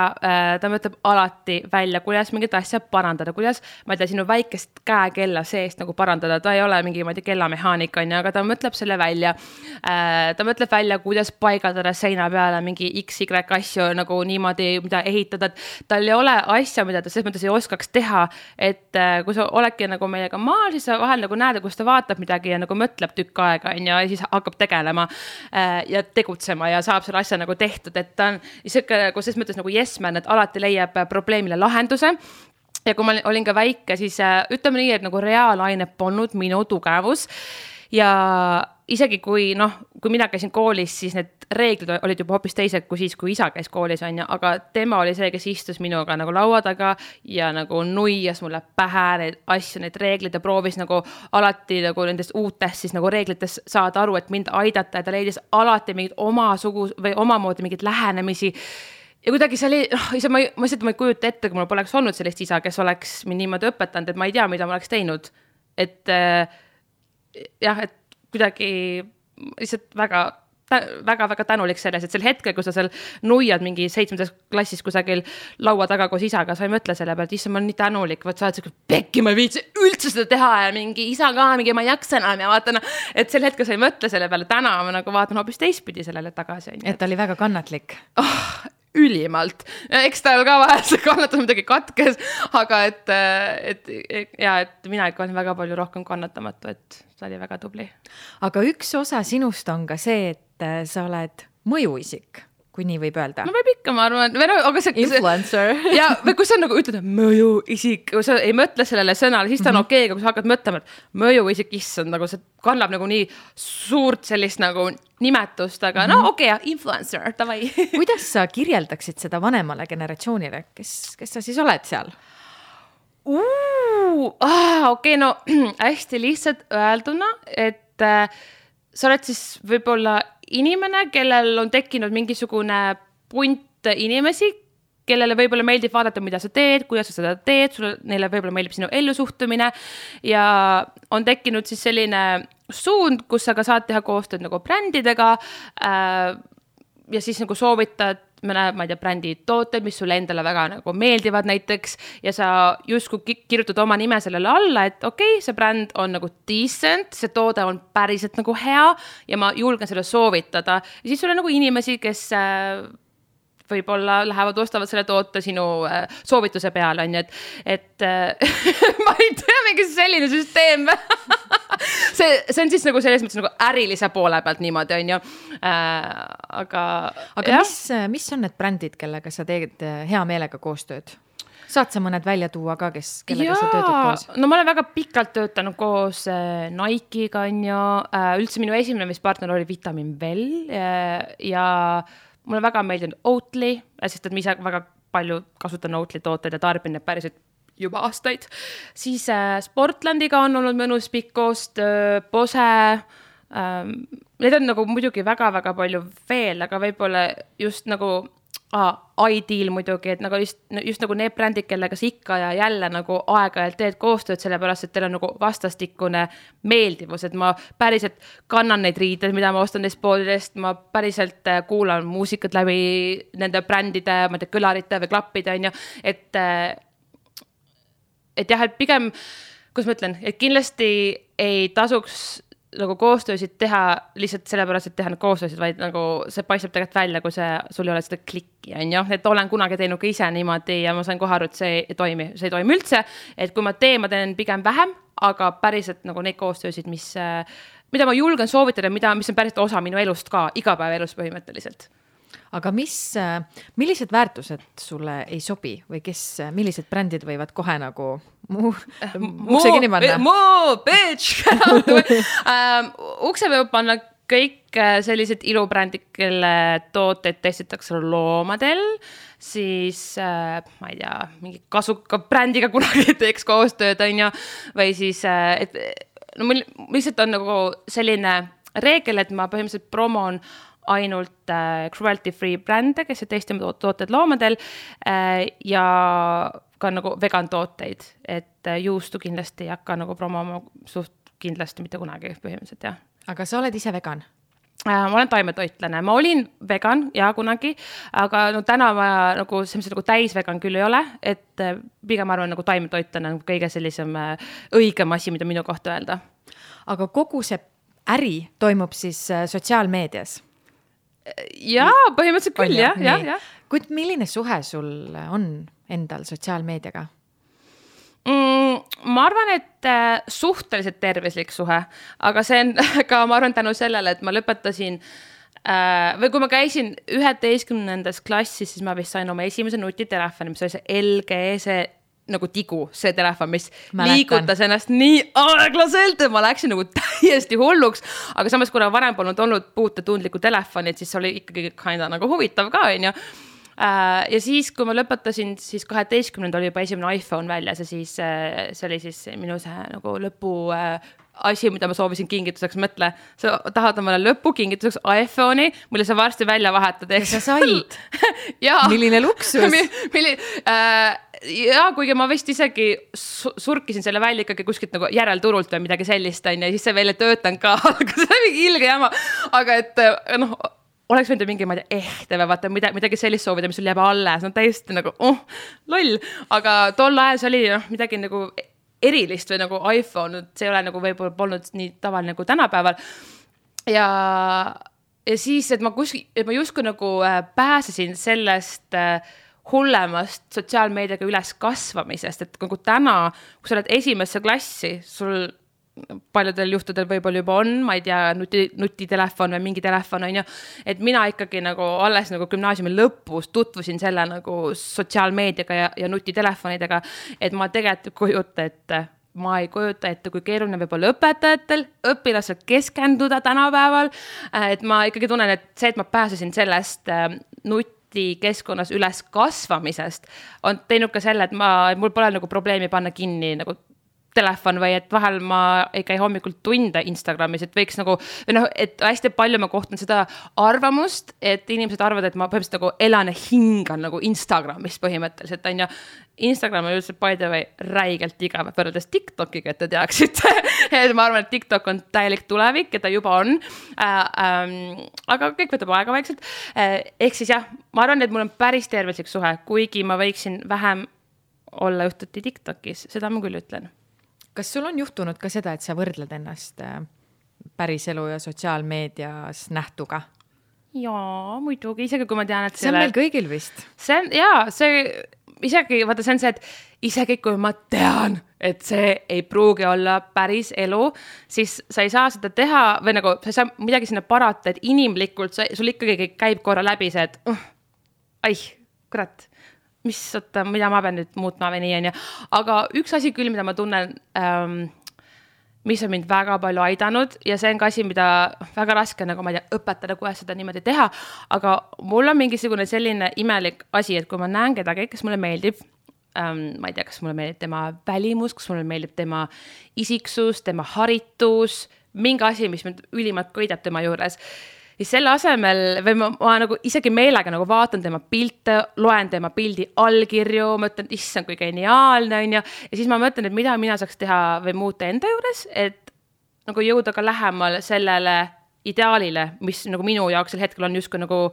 ta mõtleb alati välja, kuidas mingit asja parandada, kuidas, ma ei tea, sinu väikest käekella seest nagu parandada, ta ei ole mingi, ma ei tea, kellamehaanik on, aga ta mõtleb selle välja. Ta mõtleb välja, kuidas paigaldada seina peale mingi XY asju nagu niimoodi, mida ehitada, et tal ei ole asja, mida ta selles mõttes ei oskaks teha, et kui sa oledki nagu meiega maal, siis sa vahel nagu näed, kus ta vaatab midagi ja nagu mõtleb tükk aega ja siis hakkab tegelema ja tegutsema ja saab selle asja nagu tehtud, et ta on nagu selles mõttes nagu yes-man, et alati leiab probleemile lahenduse. Ja kui ma olin ka väike, siis ütleme nii, et nagu reaalaine polnud minu tugevus ja isegi kui mina käisin koolis, siis need reeglid olid juba hoopis teised kui siis, kui isa käis koolis, on, aga tema oli see, kes istus minuga nagu laua taga ja nagu nuias mulle pähe neid asju, neid reeglid ja proovis nagu alati nagu nendest uutest siis nagu reeglitest saada aru, et mind aidata ja ta leidis alati mingid või omamoodi mingid lähenemisi. Ja kuidagi see oli, ma ei kujuta ette, kui mul poleks olnud sellist isa, kes oleks mind niimoodi õpetanud, et ma ei tea, mida ma oleks teinud. Et jah, et kuidagi lihtsalt väga tänulik selles, et sel hetkel, kui sa seal nuiad mingi 7. klassis kusagil laua taga koos isaga, sa ei mõtle selle pealt, issa ma olen nii tänulik, sa oled siuke pekki, ma ei viitsi üldse seda teha ja mingi isa ka, mingi ma ei jaksa enam ja vaatan, et sel hetkel sa ei mõtle selle peale, täna ma nagu vaatan hoopis teistpidi sellele tagasi. Et ta oli väga kannatlik. Ülimalt. Eks tal ka vahel see kannatus midagi katkes, aga et mina ikka olen väga palju rohkem kannatamatu, et ta oli väga tubli. Aga üks osa sinust on ka see, et sa oled mõjuisik, kui nii võib öelda. No võib ikka, ma arvan. Aga influencer. Ja või kui sa nagu ütled mõjuisik, kui sa ei mõtle sellele sõnale, siis ta on okei, kui sa hakkad mõtlema, et mõjuisik issand, nagu see kannab nagu nii suurt sellist nagu nimetust, aga okei, influencer, tavai. Kuidas sa kirjeldaksid seda vanemale generatsioonile, kes sa siis oled seal? Okei, no hästi lihtsalt öelduna, et sa oled siis võib-olla inimene, kellel on tekkinud mingisugune punt inimesi, kellele võib-olla meeldib vaadata, mida sa teed, kuidas sa seda teed, neile võib-olla meeldib sinu ellusuhtumine ja on tekkinud siis selline suund, kus sa ka saad teha koostööd nagu brändidega ja siis nagu soovitad ma ei tea, brändi tooted, mis sulle endale väga nagu meeldivad näiteks ja sa justkui kirjutad oma nime sellele alla, et okei, see bränd on nagu decent, see toode on päriselt nagu hea ja ma julgen selle soovitada ja siis sul on nagu inimesi, kes võib-olla lähevad, ostavad selle toote sinu soovituse peale, on ju, et ma ei tea, mingi selline süsteem. see on siis nagu selles mõttes nagu ärilise poole pealt niimoodi, on ju. Aga mis on need brändid, kellega sa teed hea meelega koostööd? Saad sa mõned välja tuua ka, kellega sa töötad koos? No ma olen väga pikalt töötanud koos Nike'iga, on ju. Üldse minu esimene partner oli Vitamin Well ja mulle väga meeldinud Oatly, sest et ma ise väga palju kasutan Oatly tooteid ja tarbin need päriselt juba aastaid. Siis Sportlandiga on olnud mõnus pikk koostöö, Bose. Need on nagu muidugi väga-väga palju veel, aga võib-olla just nagu Ideal muidugi, et nagu just nagu need brändid, kellega sa ikka ja jälle nagu aeg-ajalt teed koostööd, sellepärast, et teil on nagu vastastikune meeldivus, et ma päriselt kannan neid riideid, mida ma ostan neist poolidest, ma päriselt kuulan muusikat läbi nende brändide, ma ei tea, kõlarite või klappide, on ju, et jah, et pigem, kus ma ütlen, et kindlasti ei tasuks nagu koostöösid teha lihtsalt sellepärast, et teha need koostöösid, vaid nagu see paistab tegelikult välja, kui sul ei ole seda klikki, on ju, et olen kunagi teinud ka ise niimoodi ja ma sain kohe aru, et see ei toimi üldse, et kui ma teen pigem vähem, aga päriselt nagu neid koostöösid, mis mida ma julgen soovitada, mis on päris osa minu elust ka, igapäevaelust põhimõtteliselt. Aga millised väärtused sulle ei sobi või millised brändid võivad kohe nagu ukse kinni panna? Bitch! Ukse võib panna kõik sellised ilubrändid, kelle tooteid testitakse loomadel, siis ma ei tea, mingi kasuka brändiga kunagi teeks koostööd, või siis, mul lihtsalt on nagu selline reegel, et ma põhimõtteliselt promon ainult cruelty-free brände, kes testime tooted loomadel ja ka nagu vegan tooteid, et juustu kindlasti ei hakka nagu promoma suht kindlasti mitte kunagi põhimõtteliselt, jah. Aga sa oled ise vegan? Ma olen taimetoitlane, ma olin vegan ja kunagi, aga täna ma nagu täisvegan küll ei ole, et pigem arvan nagu taimetoitlane on kõige sellisem õigem asi, mida minu kohta öelda. Aga kogu see äri toimub siis sotsiaalmeedias? Jaa, põhimõtteliselt küll, jah. Kuid milline suhe sul on endal sotsiaalmeediaga? Ma arvan, et suhteliselt tervislik suhe, aga see on ka, ma arvan, tänu sellele, et ma lõpetasin või kui ma käisin 11. klassis, siis ma vist sain oma esimese nutitelefoni, mis oli see LG, see nagu tigu, see telefon, mis liigutas ennast nii aeglaselt, et ma läksin nagu täiesti hulluks, aga samas, kuna varem polnud olnud puutetundlikku telefonit, siis oli ikkagi nagu huvitav ka, ja siis, kui ma lõpetasin, siis 12. oli juba esimene iPhone väljas ja siis see oli siis minu see nagu lõpu asi, mida ma soovisin kingituseks, mõtle, sa tahad omale lõpu kingituseks iPhone'i, mille sa varsti välja vahetad. Ja sa said. Milline luksus. Ja kuigi ma vist isegi surkisin selle välja ikkagi kuskilt nagu järelturult või midagi sellist, ja siis see veel ei töötanud ka, aga see on mingi ilge jama, aga et oleks võinud mingi, ma ei tea, või vaata midagi sellist soovida, mis sul jääb alles, täiesti nagu, loll, aga tol ajal see oli midagi nagu erilist või nagu iPhone, see ei ole nagu võib-olla polnud nii tavaline nagu tänapäeval. Ja siis, et ma justkui nagu pääsesin sellest hullemast sotsiaalmeediaga üles kasvamisest, et nagu täna, kui sa oled esimesse klassi, sul paljudel juhtudel võib-olla juba on, ma ei tea, nutitelefon või mingi telefon, et mina ikkagi nagu alles nagu gümnaasiumi lõpus tutvusin selle nagu sotsiaalmeediaga ja nutitelefonidega, et ma tegelikult ma ei kujuta ette, kui keeruline võib-olla õpetajatel, õpilasel keskenduda tänapäeval, et ma ikkagi tunnen, et see, et ma pääsesin sellest nutikeskkonnas üles kasvamisest, on teinud ka selle, et mul pole nagu probleemi panna kinni nagu telefon või et vahel ma ei käi hommikul tunde Instagramis, et võiks nagu, et hästi palju ma kohtan seda arvamust, et inimesed arvavad, et ma põhimõtteliselt nagu elan ja hingan nagu Instagramis põhimõtteliselt, Instagram on üldse by the way räigelt igav võrreldes TikTokiga, et te teaksite, et ma arvan, et TikTok on täielik tulevik, et ta juba on, aga kõik võtab aega vaikselt, ehk siis jah, ma arvan, et mul on päris tervislik suhe, kuigi ma võiksin vähem olla juhtuti TikTokis, seda ma küll ütlen. Kas sul on juhtunud ka seda, et sa võrdled ennast päriselu ja sotsiaalmeedias nähtuga? Jaa, muidugi, isegi kui ma tean, et see on meil kõigil vist. Isegi see, et isegi kui ma tean, et see ei pruugi olla päris elu, siis sa ei saa seda teha või nagu sa ei saa midagi sinna parata, et inimlikult sul ikkagi käib korra läbi see, et kurat, mida ma pean nüüd muutma või nii, aga üks asi küll, mida ma tunnen, mis on mind väga palju aidanud ja see on ka asi, mida väga raske nagu ma ei tea, õpetada, kuidas seda niimoodi teha, aga mul on mingisugune selline imelik asi, et kui ma näen kedagi, kes mulle meeldib, ma ei tea, kas mulle meeldib tema välimus, kas mulle meeldib tema isiksus, tema haritus, mingi asi, mis mind ülimalt köidab tema juures, siis selle asemel, või ma nagu isegi meelega nagu vaatan tema pilte, loen tema pildi allkirju, mõtlen, issand, kui geniaalne on ja siis ma mõtlen, et mida mina saaks teha või muuta enda juures, et nagu jõuda ka lähemal sellele ideaalile, mis nagu minu jaoks sel hetkel on justkui nagu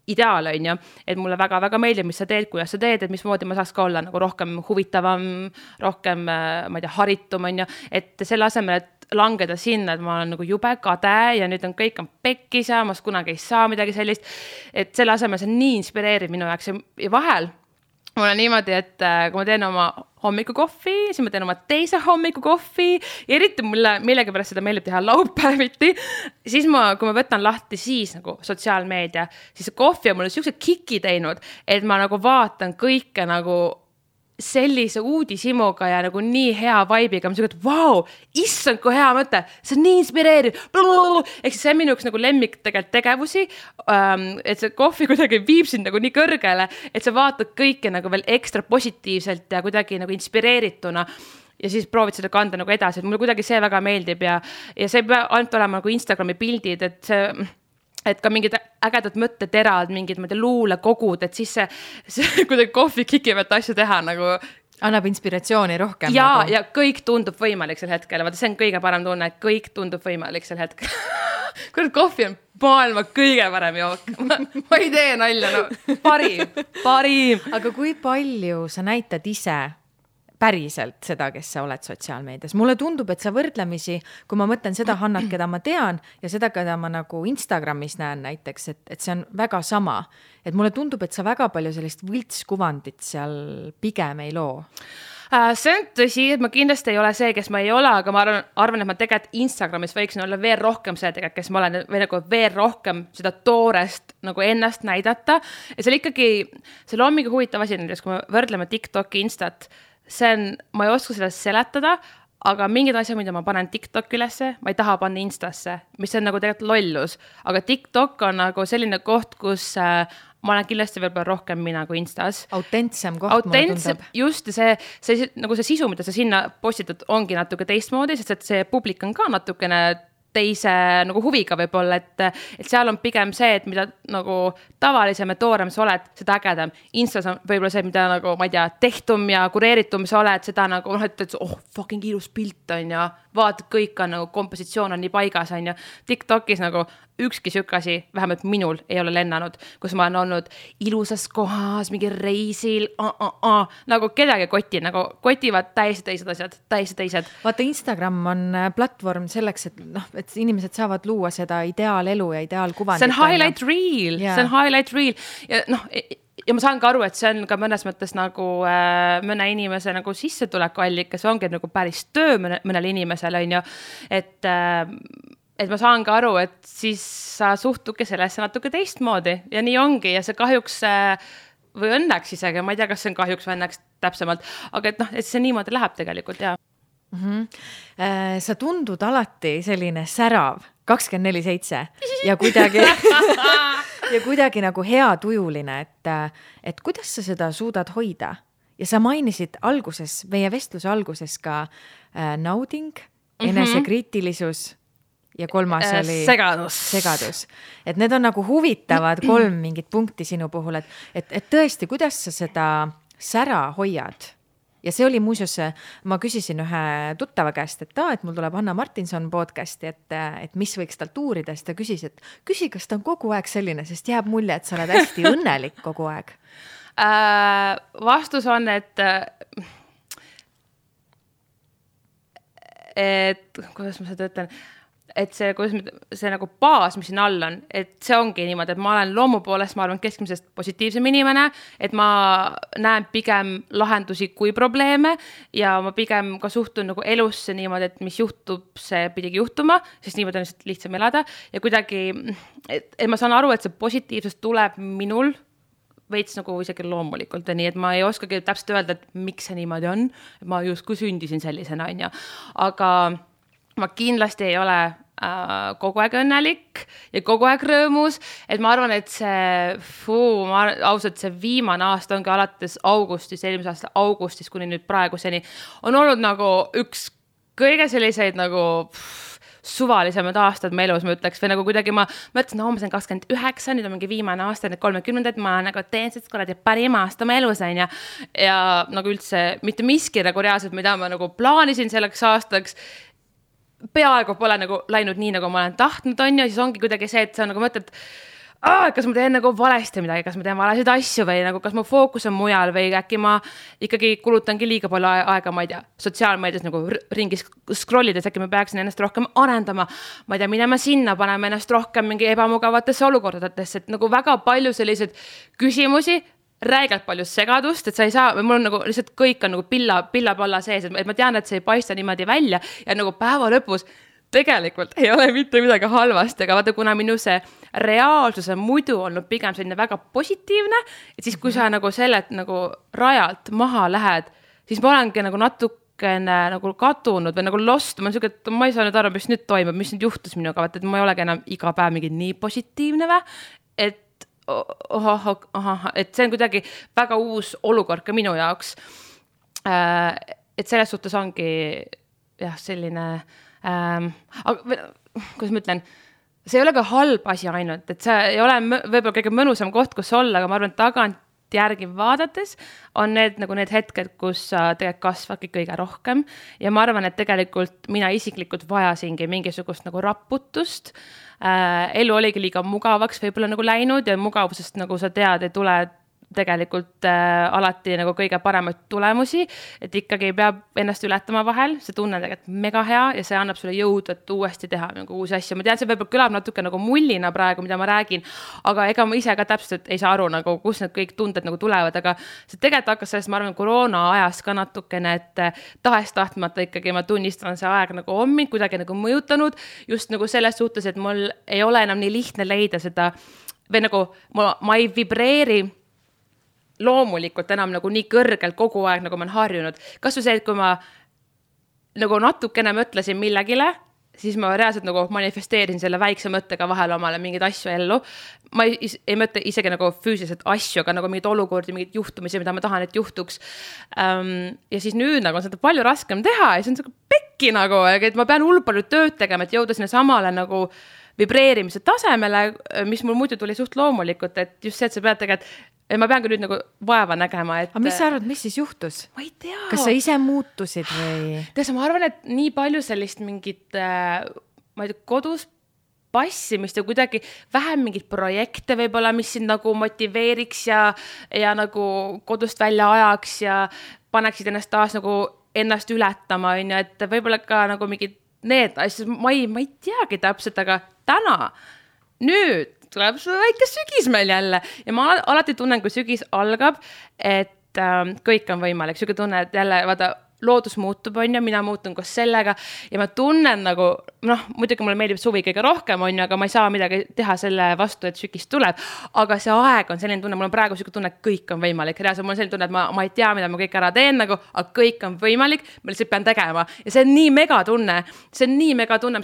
ideaal on ja, et mulle väga-väga meeldib, mis sa teed, kuidas sa teed, et mismoodi ma saaks ka olla nagu rohkem huvitavam, rohkem, ma ei tea, haritum on ja, et selle asemel, et langeda sinna, et ma olen nagu jube kade ja nüüd on kõik pekkis ja ma kunagi ei saa midagi sellist, et selle asemel see on nii inspireeriv minu jaoks ja vahel mul on niimoodi, et kui ma teen oma hommikukohvi, siis ma teen oma teise hommikukohvi ja eriti mulle millegipärast seda meeldib teha laupäeviti. Siis kui ma võtan lahti siis nagu sotsiaalmeedia, siis see kohvi on mulle siukse kiki teinud, et ma nagu vaatan kõike nagu sellise uudishimuga ja nagu nii hea vibe'iga, ma siuke, et vau, issand, kui hea mõte, see on nii inspireeriv. Ehk siis see on minu üks nagu lemmik tegelikult tegevusi, et see kohvi kuidagi viib sind nagu nii kõrgele, et sa vaatad kõike nagu veel ekstra positiivselt ja kuidagi nagu inspireerituna ja siis proovid seda kanda nagu edasi, et mulle kuidagi see väga meeldib ja see ei pea ainult olema nagu Instagrami pildid, et ka mingid ägedad mõtteterad, mingid luulekogud, et siis see kuidagi kohvi kikivat asju teha nagu annab inspiratsiooni rohkem. Ja kõik tundub võimalik sel hetkel. Vaata, see on kõige parem tunne, et kõik tundub võimalik sel hetkel. Kurat, kohvi on maailma kõige parem jook. Ma ei tee nalja, no parim. Aga kui palju sa näitad ise päriselt seda, kes sa oled sotsiaalmeedias? Mulle tundub, et sa võrdlemisi, kui ma mõtlen seda Hannat, keda ma tean ja seda, keda ma nagu Instagramis näen näiteks, et see on väga sama. Et mulle tundub, et sa väga palju sellist võltskuvandit seal pigem ei loo. See on tõsi, et ma kindlasti ei ole see, kes ma ei ole, aga ma arvan, et ma tegelikult Instagramis võiksin olla veel rohkem see tegelikult, kes ma olen või nagu veel rohkem seda toorest nagu ennast näidata. Ja see oli ikkagi, see loomingi huvitav asi, kui me võrdleme TikToki, Instat, ma ei oska seda seletada, aga mingid asjad, mida ma panen TikTok ülesse, ma ei taha panna Instasse, mis on nagu tegelikult lollus. Aga TikTok on nagu selline koht, kus ma olen kindlasti veel rohkem mina kui Instas. Autentsem koht, mulle tundub. Just, nagu see sisu, mida sa sinna postitad, ongi natuke teistmoodi, sest et see publik on ka natukene teise nagu huviga võib-olla, et seal on pigem see, et mida nagu tavalisem ja toorem sa oled, seda ägedam. Instas on võib-olla see, mida nagu, ma ei tea, tehtum ja kureeritum sa oled, seda nagu, et fucking ilus pilt on ja vaatad, kõik on nagu, kompositsioon on nii paigas on ja TikTokis nagu ükski sükasi, vähemalt minul ei ole lennanud, kus ma olen olnud ilusas kohas, mingi reisil, nagu kedagi nagu kotivad täiesti teised asjad, täiesti teised. Vaata, Instagram on platvorm selleks, et inimesed saavad luua seda ideaalelu ja ideaalkuvandit. See on highlight reel, see on highlight reel ja ma saan ka aru, et see on ka mõnes mõttes nagu mõne inimese nagu sissetulekuallikas, see ongi nagu päris töö mõnel inimesel on ju, et ma saan ka aru, et siis sa suhtuke sellesse natuke teistmoodi ja nii ongi ja see kahjuks või õnneks isegi, ma ei tea, kas see on kahjuks või õnneks täpsemalt, aga et see niimoodi läheb tegelikult ja. Sa tundud alati selline särav 24/7 ja kuidagi nagu hea tujuline, et kuidas sa seda suudad hoida ja sa mainisid meie vestluse alguses ka nauding, enesekriitilisus ja kolmas oli segadus. Et need on nagu huvitavad 3 mingit punkti sinu puhul, et tõesti, kuidas sa seda sära hoiad? Ja see oli muuseas, ma küsisin ühe tuttava käest, et mul tuleb Hanna Martinson podcasti, et mis võiks talt uurida, siis ta küsi, kas ta on kogu aeg selline, sest jääb mulje, et sa oled hästi õnnelik kogu aeg. Vastus on, et kuidas ma seda ütlen, et see nagu baas, mis siin all on, et see ongi niimoodi, et ma olen loomu poolest, ma arvan, keskmisest positiivsem inimene, et ma näen pigem lahendusi kui probleeme ja ma pigem ka suhtun nagu elusse niimoodi, et mis juhtub, see pidigi juhtuma, sest niimoodi on lihtsam elada ja kuidagi, et ma saan aru, et see positiivsus tuleb minul veits nagu isegi loomulikult ja nii, et ma ei oskagi täpselt öelda, et miks see niimoodi on, et ma justkui sündisin sellisena, on ja. Aga ma kindlasti ei ole kogu aeg õnnelik ja kogu aeg rõõmus, et ma arvan, et ausalt see viimane aasta ongi alates eelmise aasta augustis kuni nüüd praeguseni on olnud nagu üks kõige selliseid nagu suvalisemad aastad me elus, ma ütleks, või nagu kuidagi ma mõtlesin, ma sain 29, nüüd on mingi viimane aasta, need 30, ma nagu teen sest kuradi parim aasta ma elus on ja nagu üldse mitte miski nagu reaalselt, mida ma nagu plaanisin selleks aastaks, peaaegu pole nagu läinud nii, nagu ma olen tahtnud on ja siis ongi kuidagi see, et sa nagu mõtled, kas ma teen nagu valesti midagi, kas ma teen valesid asju või nagu kas mu fookus on mujal või äkki ma ikkagi kulutangi liiga palju aega, ma ei tea, sotsiaalmeedias nagu ringis scrollides, äkki ma peaksin ennast rohkem arendama, ma ei tea, minema sinna, paneme ennast rohkem mingi ebamugavatesse olukordadesse, et nagu väga palju selliseid küsimusi, räigelt palju segadust, et sa ei saa, mul on nagu lihtsalt kõik on nagu pilla-palla sees, et ma tean, et see ei paista niimoodi välja ja nagu päeva lõpus tegelikult ei ole mitte midagi halvasti, aga vaata, kuna minu see reaalsus on muidu olnud pigem selline väga positiivne, et siis kui sa nagu sellelt nagu rajalt maha lähed, siis ma olengi nagu natukene nagu kadunud või nagu lost, ma olen siuke, et ma ei saa nüüd aru, mis nüüd toimub, mis nüüd juhtus minuga, vaata, et ma ei olegi enam iga päev mingi nii positiivne või, et et see on kuidagi väga uus olukord ka minu jaoks. Et selles suhtes ongi jah, selline kuidas ma ütlen, see ei ole ka halb asi ainult, et see ei ole võib-olla kõige mõnusam koht, kus olla, aga ma arvan, et tagant järgi vaadates on need hetked, kus sa tegelikult kasvadki kõige rohkem ja ma arvan, et tegelikult mina isiklikult vajasingi mingisugust nagu raputust. Elu oligi liiga mugavaks võib-olla nagu läinud ja mugavusest nagu sa tead, ei tule tegelikult alati nagu kõige paremaid tulemusi, et ikkagi peab ennast ületama vahel, see tunne on tegelikult mega hea ja see annab sulle jõudu, et uuesti teha nagu uusi asju. Ma tean, see võib-olla kõlab natuke nagu mullina praegu, mida ma räägin, aga ega ma ise ka täpselt ei saa aru, nagu, kus need kõik tunded nagu tulevad, aga see tegelikult hakkas sellest, ma arvan, koroona ajas ka natukene, et tahes-tahtmata ikkagi ma tunnistan, see aeg nagu on mind kuidagi nagu mõjutanud, just nagu selles suhtes, et mul ei ole enam nii lihtne leida seda, või nagu ma ei vibreeri loomulikult enam nagu nii kõrgelt kogu aeg, nagu ma olen harjunud. Kas või see, et kui ma nagu natukene mõtlesin millegile, siis ma reaalselt nagu manifesteerisin selle väikse mõttega vahel omale mingeid asju ellu. Ma ei mõtle isegi nagu füüsiliselt asju, aga nagu mingid olukordi, mingid juhtumisi, mida ma tahan, et juhtuks. Ja siis nüüd nagu on seda palju raskem teha ja see on pekki nagu, et ma pean hullult palju tööd tegema, et jõuda sinna samale nagu vibreerimise tasemele, mis mul muidu tuli suht loomulikult, et just see, et sa pead tegelikult ma pean ka nüüd nagu vaeva nägema, et... Aga mis sa arvad, mis siis juhtus? Ma ei tea. Kas sa ise muutusid või? Ma arvan, et nii palju sellist mingit, ma ei tea, kodus passimist ja kuidagi vähem mingit projekte võib-olla, mis sind nagu motiveeriks ja nagu kodust välja ajaks ja paneksid ennast taas nagu ennast ületama, et võib-olla ka nagu mingid need asjad, ma ei teagi täpselt, aga täna, nüüd tuleb see väike sügis meil jälle ja ma alati tunnen, kui sügis algab, et kõik on võimalik. Sügi tunne, et jälle vaata, loodus muutub, on ju, mina muutun koos sellega ja ma tunnen nagu, muidugi mulle meeldib suvi kõige rohkem, on ju, aga ma ei saa midagi teha selle vastu, et sügis tuleb, aga see aeg on selline tunne, mul on praegu sügi tunne, et kõik on võimalik. Reaalselt mul on selline tunne, et ma ei tea, mida ma kõik ära teen, nagu, aga kõik on võimalik, ma lihtsalt pean tegema ja see on nii mega tunne,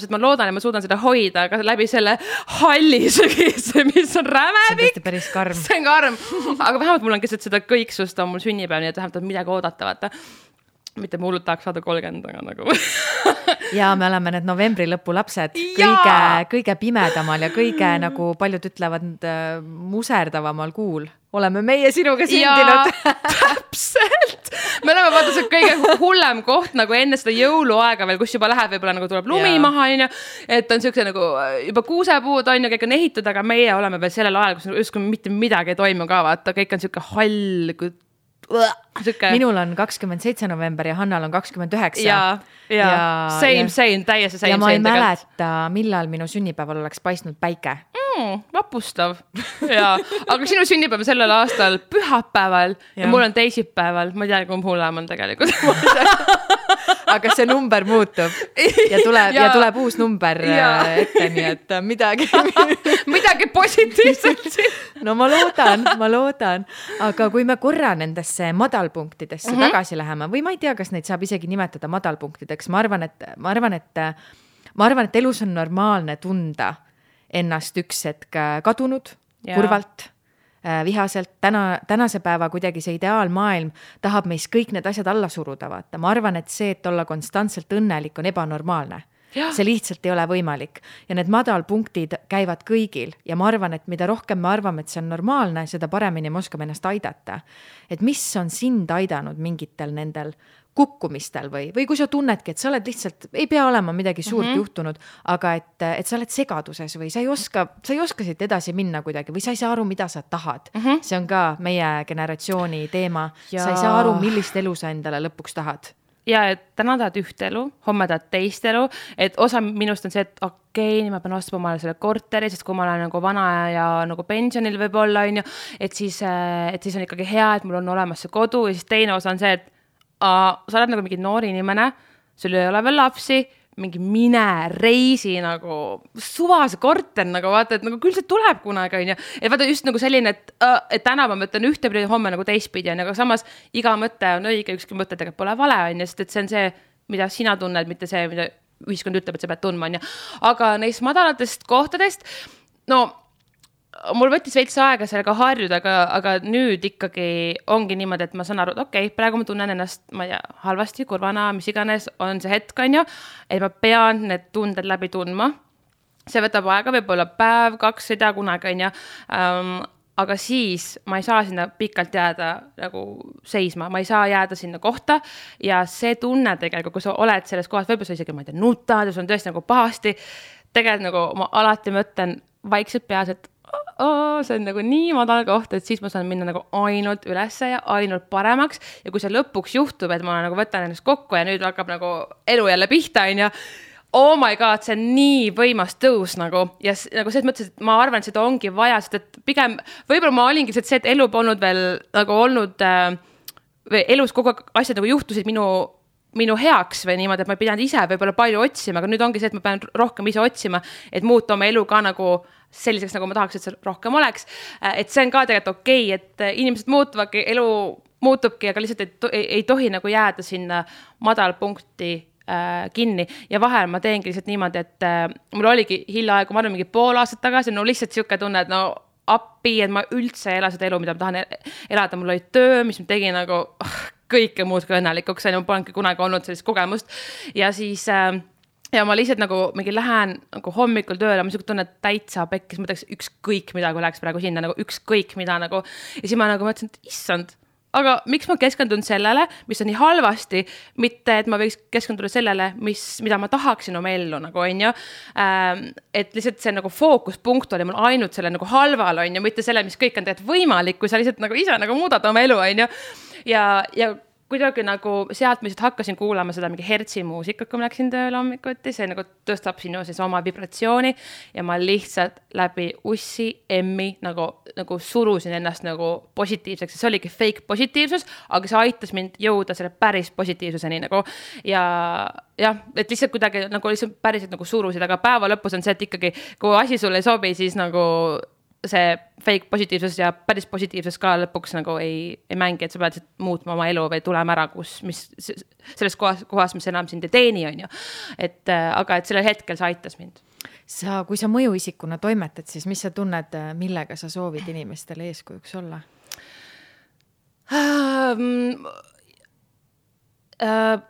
sest ma loodan, et ma suudan seda hoida aga läbi selle halli sügise, mis on rämepik. See on päris karm. See on karm, aga vähemalt mul on keset seda kõiksust on mul sünnipäev, nii et vähemalt on midagi oodata, vaata. Mitte ma hullult tahaks saada 30, aga nagu. Ja me oleme need novembri lõpu lapsed kõige pimedamal ja kõige nagu paljud ütlevad muserdavamal kuul. Oleme meie sinuga sündinud. Täpselt. Me oleme vaata see kõige hullem koht nagu enne seda jõuluaega veel, kus juba läheb, võib-olla nagu tuleb lumi maha, et on siukse nagu juba kuusepuud on ja kõik on ehitud, aga meie oleme veel sellel ajal, kus justkui mitte midagi ei toimu ka, vaata, kõik on siuke hall, Minul on 27 november ja Hannal on 29. Same, täiesti same. Ja ma ei mäleta, millal minu sünnipäeval oleks paistnud päike. Vapustav. Aga sinu sünnipäev sellel aastal pühapäeval ja mul on teisipäeval. Ma ei tea, kumb hullem on tegelikult. Aga see number muutub ja tuleb uus number ette, nii et midagi positiivselt. No ma loodan. Aga kui me korra nendesse madalpunktidesse tagasi läheme, või ma ei tea, kas neid saab isegi nimetada madalpunktideks, ma arvan, et elus on normaalne tunda ennast üks hetk kadunud, kurvalt, vihaselt. Tänase päeva kuidagi see ideaalmaailm tahab meis kõik need asjad alla suruda, vaata. Ma arvan, et see, et olla konstantselt õnnelik on ebanormaalne. See lihtsalt ei ole võimalik. Ja need madalpunktid käivad kõigil ja ma arvan, et mida rohkem me arvame, et see on normaalne, seda paremini me oskame ennast aidata. Et mis on sind aidanud mingitel nendel kukkumistel või kui sa tunnedki, et sa oled lihtsalt, ei pea olema midagi suurt juhtunud, aga et sa oled segaduses või sa ei oska siit edasi minna kuidagi või sa ei saa aru, mida sa tahad. See on ka meie generatsiooni teema. Sa ei saa aru, millist elu sa endale lõpuks tahad. ja et täna tahad üht elu, homme tahad teist elu, et osa minust on see, et okei, ma pean ostma omale selle korteri, sest kui ma olen nagu vana ja nagu pensionil võib-olla, on ju, et siis on ikkagi hea, et mul on olemas see kodu ja siis teine osa on see, et sa oled nagu mingi noor inimene, sul ei ole veel lapsi, mingi mine reisi nagu suvase korter, nagu vaata, et nagu küll see tuleb kunagi, on ju. Et vaata just nagu selline, et täna ma mõtlen ühtepidi, homme nagu teistpidi, on, aga samas iga mõte on õige, ükski mõte tegelikult pole vale, on ju, sest et see on see, mida sina tunned, mitte see, mida ühiskond ütleb, et sa pead tundma, on ju. Aga neist madalatest kohtadest, no mul võttis veits aega sellega harjuda, aga nüüd ikkagi ongi niimoodi, et ma saan aru, et okei, praegu ma tunnen ennast, ma ei tea, halvasti, kurvana, mis iganes on see hetk, on ju, et ma pean need tunded läbi tundma. See võtab aega, võib-olla päev, 2, ei tea kunagi, on ju. Aga siis ma ei saa sinna pikalt jääda nagu seisma, ma ei saa jääda sinna kohta ja see tunne tegelikult, kui sa oled selles kohas, võib-olla sa isegi, ma ei tea, nutad ja sul on tõesti nagu pahasti, tegelikult nagu ma alati mõtlen vaikselt peas, et see on nagu nii madal koht, et siis ma saan minna nagu ainult ülesse ja ainult paremaks ja kui see lõpuks juhtub, et ma nagu võtan ennast kokku ja nüüd hakkab nagu elu jälle pihta, on ju, oh my god, see on nii võimas tõus nagu ja nagu selles mõttes, et ma arvan, et seda ongi vaja, sest et pigem võib-olla ma olingi see, et elu polnud veel nagu olnud või elus kogu aeg asjad nagu juhtusid minu heaks või niimoodi, et ma ei pidanud ise võib-olla palju otsima, aga nüüd ongi see, et ma pean rohkem ise otsima, et muuta oma elu ka nagu selliseks, nagu ma tahaks, et see rohkem oleks. Et see on ka tegelikult okei, et inimesed muutuvadki, elu muutubki, aga lihtsalt ei tohi nagu jääda sinna madalpunkti kinni ja vahel ma teengi lihtsalt niimoodi, et mul oligi hiljaaegu, ma arvan mingi pool aastat tagasi, no lihtsalt siuke tunne, et no appi, et ma üldse ei ela seda elu, mida ma tahan elada, mul oli töö, mis ma tegin nagu kõike muud kui õnnelikuks, ma polnudki kunagi olnud sellist kogemust ja siis ja ma lihtsalt nagu mingi lähen nagu hommikul tööle, ma niisugune tunne täitsa pekkis, ma teeks ükskõik mida, kui läheks praegu sinna, nagu ükskõik mida nagu. Ja siis ma nagu mõtlesin, et issand, aga miks ma keskendun sellele, mis on nii halvasti, mitte et ma võiks keskenduda sellele, mida ma tahaksin oma ellu, nagu on ju. Et lihtsalt see nagu fookuspunkt oli mul ainult selle nagu halval, on ju, mitte selle, mis kõik on tegelikult võimalik, kui sa lihtsalt nagu ise nagu muudad oma elu, on ju. Ja kuidagi nagu sealt ma lihtsalt hakkasin kuulama seda mingi hertsi muusikat, kui ma läksin tööle hommikuti, see nagu tõstab sinu siis oma vibratsiooni ja ma lihtsalt läbi ussi, emmi nagu surusin ennast nagu positiivseks, see oligi fake positiivsus, aga see aitas mind jõuda selle päris positiivsuseni nagu ja jah, et lihtsalt kuidagi nagu lihtsalt päriselt nagu surusid, aga päeva lõpus on see, et ikkagi kui asi sulle ei sobi, siis nagu see fake positiivsus ja päris positiivsus ka lõpuks nagu ei mängi, et sa pead muutma oma elu või tulema ära, mis selles kohas, mis enam sind ei teeni, on ju. Aga et sellel hetkel see aitas mind. Kui sa mõjuisikuna toimetad, siis mis sa tunned, millega sa soovid inimestele eeskujuks olla?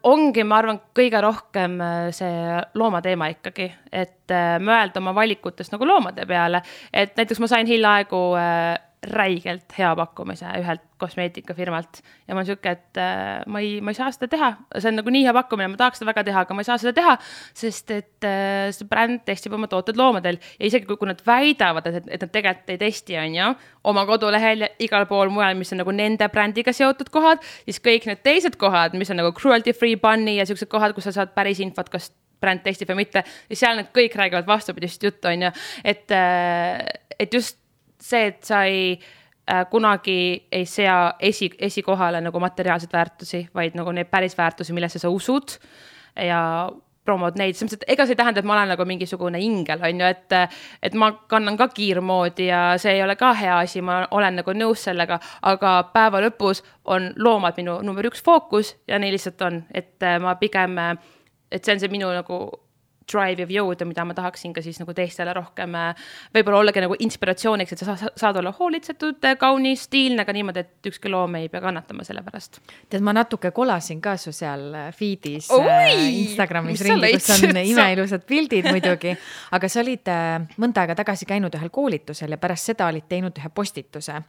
Ongi, ma arvan, kõige rohkem see loomateema ikkagi, et mõelda oma valikutest nagu loomade peale, et näiteks ma sain hiljaaegu räigelt hea pakkumise ühelt kosmeetikafirmalt ja ma olen siuke, et ma ei saa seda teha, see on nagu nii hea pakkumine, ma tahaks seda väga teha, aga ma ei saa seda teha, sest et see bränd testib oma tooted loomadel ja isegi kui nad väidavad, et nad tegelikult ei testi, on ju, oma kodulehel ja igal pool mujal, mis on nagu nende brändiga seotud kohad, siis kõik need teised kohad, mis on nagu cruelty free bunny ja siuksed kohad, kus sa saad päris infot, kas bränd testib või mitte, ja seal need kõik räägivad vastupidist juttu, on ju, et just see, et sa kunagi ei sea esikohale nagu materiaalseid väärtusi, vaid nagu neid päris väärtusi, millesse sa usud ja promod neid. Ega see ei tähenda, et ma olen nagu mingisugune ingel, on ju, et ma kannan ka kiirmoodi ja see ei ole ka hea asi, ma olen nagu nõus sellega, aga päeva lõpus on loomad minu number 1 fookus ja nii lihtsalt on, et ma pigem, et see on see minu nagu drive ja jõuda, mida ma tahaksin ka siis nagu teistele rohkem võib-olla ollagi nagu inspiratsiooniks, et sa saad olla hoolitsetud, kaunis, stiilne, aga niimoodi, et ükski loom ei pea kannatama selle pärast. Tead, ma natuke kolasin ka su seal feedis Instagramis ringi, kus on imeilusad pildid muidugi, aga sa olid mõnda aega tagasi käinud ühel koolitusel ja pärast seda olid teinud ühe postituse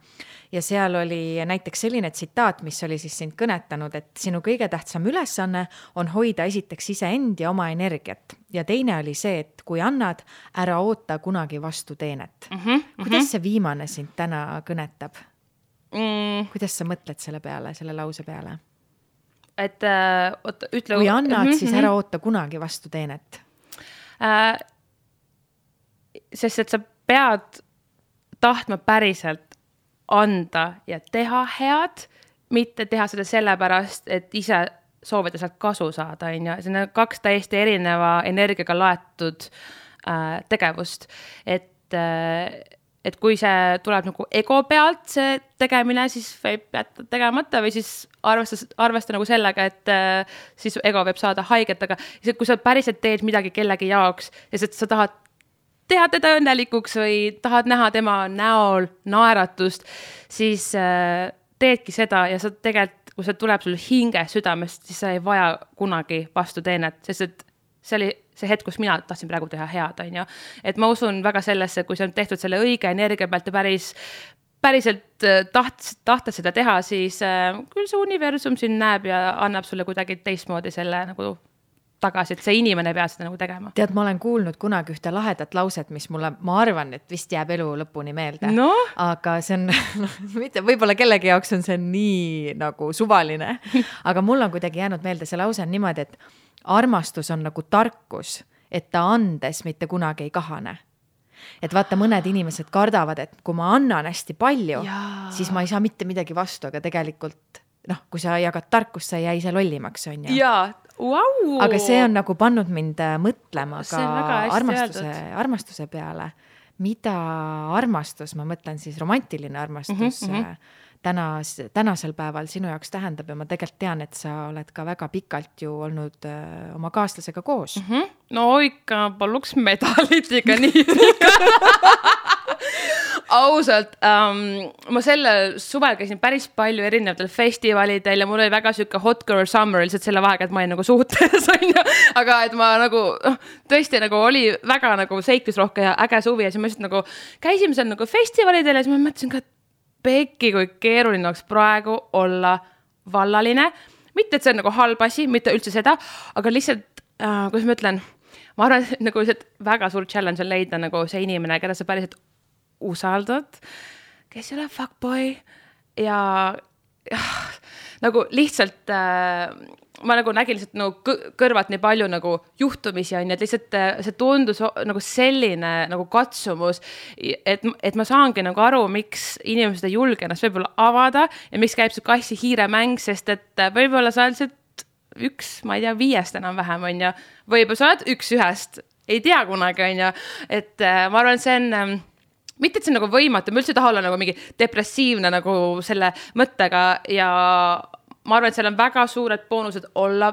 ja seal oli näiteks selline tsitaat, mis oli siis sind kõnetanud, et sinu kõige tähtsam ülesanne on hoida esiteks iseend ja oma energiat ja teine oli see, et kui annad, ära oota kunagi vastu teenet. Kuidas see viimane sind täna kõnetab? Kuidas sa mõtled selle peale, selle lause peale? et ütle. Kui annad, siis ära oota kunagi vastu teenet. Sest et sa pead tahtma päriselt anda ja teha head, mitte teha seda sellepärast, et ise soovida sealt kasu saada, on ju. See on 2 täiesti erineva energiaga laetud tegevust, et kui see tuleb nagu ego pealt see tegemine, siis võib jätta tegemata või siis arvesta nagu sellega, et siis ego võib saada haiget, aga kui sa päriselt teed midagi kellegi jaoks, sest sa tahad teha teda õnnelikuks või tahad näha tema näol naeratust, siis teedki seda ja sa tegelikult, kui see tuleb sul hinge südamest, siis sa ei vaja kunagi vastu teenet, sest et see oli see hetk, kus mina tahtsin praegu teha head, on ju. Et ma usun väga sellesse, kui see on tehtud selle õige energia pealt ja päriselt tahta seda teha, siis küll see universum siin näeb ja annab sulle kuidagi teistmoodi selle nagu tagasi, et see inimene ei pea seda nagu tegema. Tead, ma olen kuulnud kunagi ühte lahedat lauset, mis mulle, ma arvan, et vist jääb elu lõpuni meelde. No? Aga see on, mitte, võib-olla kellegi jaoks on see nii nagu suvaline, aga mul on kuidagi jäänud meelde see lause on niimoodi, et armastus on nagu tarkus, et ta andes mitte kunagi ei kahane. Et vaata, mõned inimesed kardavad, et kui ma annan hästi palju, siis ma ei saa mitte midagi vastu, aga tegelikult, kui sa jagad tarkust, sa ei jää ise lollimaks, on ju. Jaa, wow. Aga see on nagu pannud mind mõtlema ka armastuse peale. Mida armastus, ma mõtlen siis romantiline armastus, tänasel päeval sinu jaoks tähendab ja ma tegelikult tean, et sa oled ka väga pikalt ju olnud oma kaaslasega koos. No ikka paluks medalit ikka nii. Ausalt, ma selle suvel käisin päris palju erinevatel festivalidel ja mul oli väga süke hot girl summer lihtsalt selle vahega, et ma olin nagu suhtes, aga et ma nagu tõesti nagu oli väga nagu seiklusrohke ja äge suvi ja siis ma lihtsalt nagu käisime seal nagu festivalidel ja siis ma mõtlesin ka, et Pekki, kui keeruline oleks praegu olla vallaline. Mitte, et see on nagu halb asi, mitte üldse seda, aga lihtsalt, kuidas ma ütlen, ma arvan, et nagu väga suur challenge on leida nagu see inimene, keda sa päriselt usaldad, kes ei ole fuckboy ja nagu lihtsalt ma nagu nägin lihtsalt nagu kõrvalt nii palju nagu juhtumisi on ja et lihtsalt see tundus nagu selline nagu katsumus, et ma saangi nagu aru, miks inimesed ei julge ennast võib-olla avada ja miks käib see kassi-hiire mäng, sest et võib-olla sa oled üks, ma ei tea, 5 enam vähem on ja võib-olla sa oled 1 ei tea kunagi on ja, et ma arvan, see on mitte, et see on nagu võimatu, ma üldse taha olla nagu mingi depressiivne nagu selle mõttega ja ma arvan, et seal on väga suured boonused olla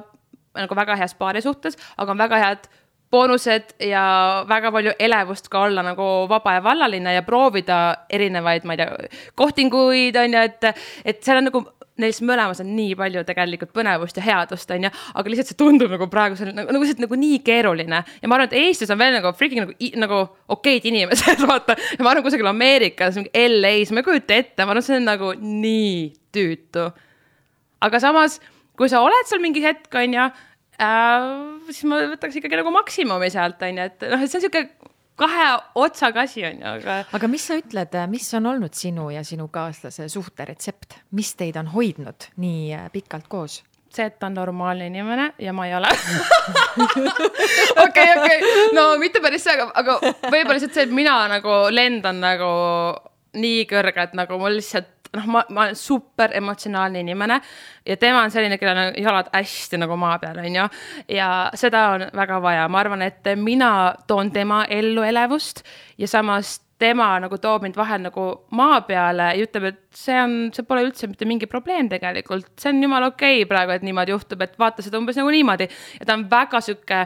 nagu väga heas paari suhtes, aga on väga head boonused ja väga palju elevust ka olla nagu vaba ja vallaline ja proovida erinevaid, ma ei tea, kohtinguid on ja, et seal on nagu neis mõlemas on nii palju tegelikult põnevust ja headust on ja, aga lihtsalt see tundub nagu praegu nagu nii keeruline ja ma arvan, et Eestis on veel nagu freaking nagu okeid inimesed, vaata, ja ma arvan kusagil Ameerikas, LA-s, ma ei kujuta ette, ma arvan, see on nagu nii tüütu. Aga samas, kui sa oled seal mingi hetk, on ja, siis ma võtaks ikkagi nagu maksimumi sealt, on ja, et see on selline 2 otsaga asi, on ja. Aga mis sa ütled, mis on olnud sinu ja sinu kaaslase suhte retsept? Mis teid on hoidnud nii pikalt koos? See, et ta on normaalne inimene ja ma ei ole. Okei. No mitte päris see, aga võib-olla lihtsalt see, et mina nagu lendan nagu nii kõrge, et nagu mul lihtsalt ma olen super emotsionaalne inimene ja tema on selline, kellel on jalad hästi nagu maa peal, on ju. Ja seda on väga vaja. Ma arvan, et mina toon tema ellu elevust ja samas tema nagu toob mind vahel nagu maa peale ja ütleb, et see pole üldse mitte mingi probleem tegelikult. See on jumal okei praegu, et niimoodi juhtub, et vaata seda umbes nagu niimoodi. Ja ta on väga süke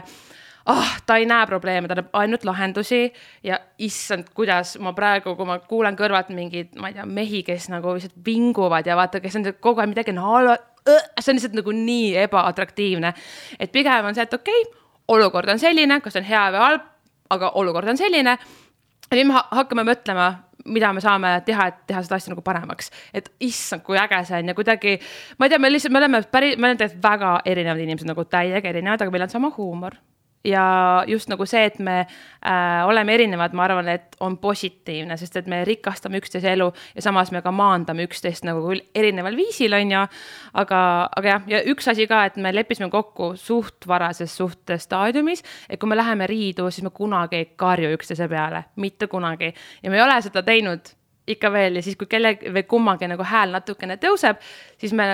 ta ei näe probleeme, ta näeb ainult lahendusi ja issand, kuidas ma praegu, kui ma kuulen kõrvalt mingid, ma ei tea, mehi, kes nagu lihtsalt vinguvad ja vaata, kes on kogu aeg midagi halva, see on lihtsalt nagu nii ebaatraktiivne. Et pigem on see, et okei, olukord on selline, kas on hea või halb, aga olukord on selline. Ja nüüd me hakkame mõtlema, mida me saame teha, et teha seda asja nagu paremaks. Et issand, kui äge see on ja kuidagi, ma ei tea, me oleme väga erinevad inimesed, nagu täiega erinevad, aga meil on sama huumor. ja just nagu see, et me oleme erinevad, ma arvan, et on positiivne, sest et me rikastame üksteise elu ja samas me ka maandame üksteist nagu erineval viisil, on ju, aga jah, ja üks asi ka, et me leppisime kokku suht varases suhtestaadiumis, et kui me läheme riidu, siis me kunagi ei karju üksteise peale, mitte kunagi, ja me ei ole seda teinud ikka veel ja siis, kui kellegi või kummagi nagu hääl natukene tõuseb, siis me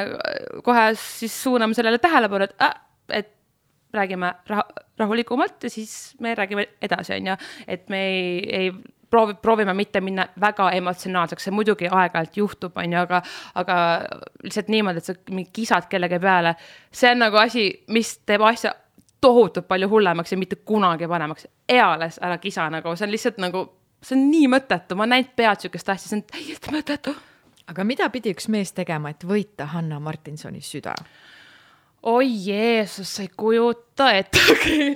kohe siis suuname sellele tähelepanu, et räägime rahulikumalt ja siis me räägime edasi, on ju, et me ei proovime mitte minna väga emotsionaalseks, see muidugi aeg-ajalt juhtub, on ju, aga lihtsalt niimoodi, et sa kisad kellegi peale, see on nagu asi, mis teeb asja tohutult palju hullemaks ja mitte kunagi panemaks. Eales ära kisa nagu, see on lihtsalt nagu see on nii mõttetu, ma näinud pead sükest asja, see on täiesti mõttetu. Aga mida pidi üks mees tegema, et võita Hanna Martinsoni süda? Oi Jeesus, sa ei kujuta ettegi.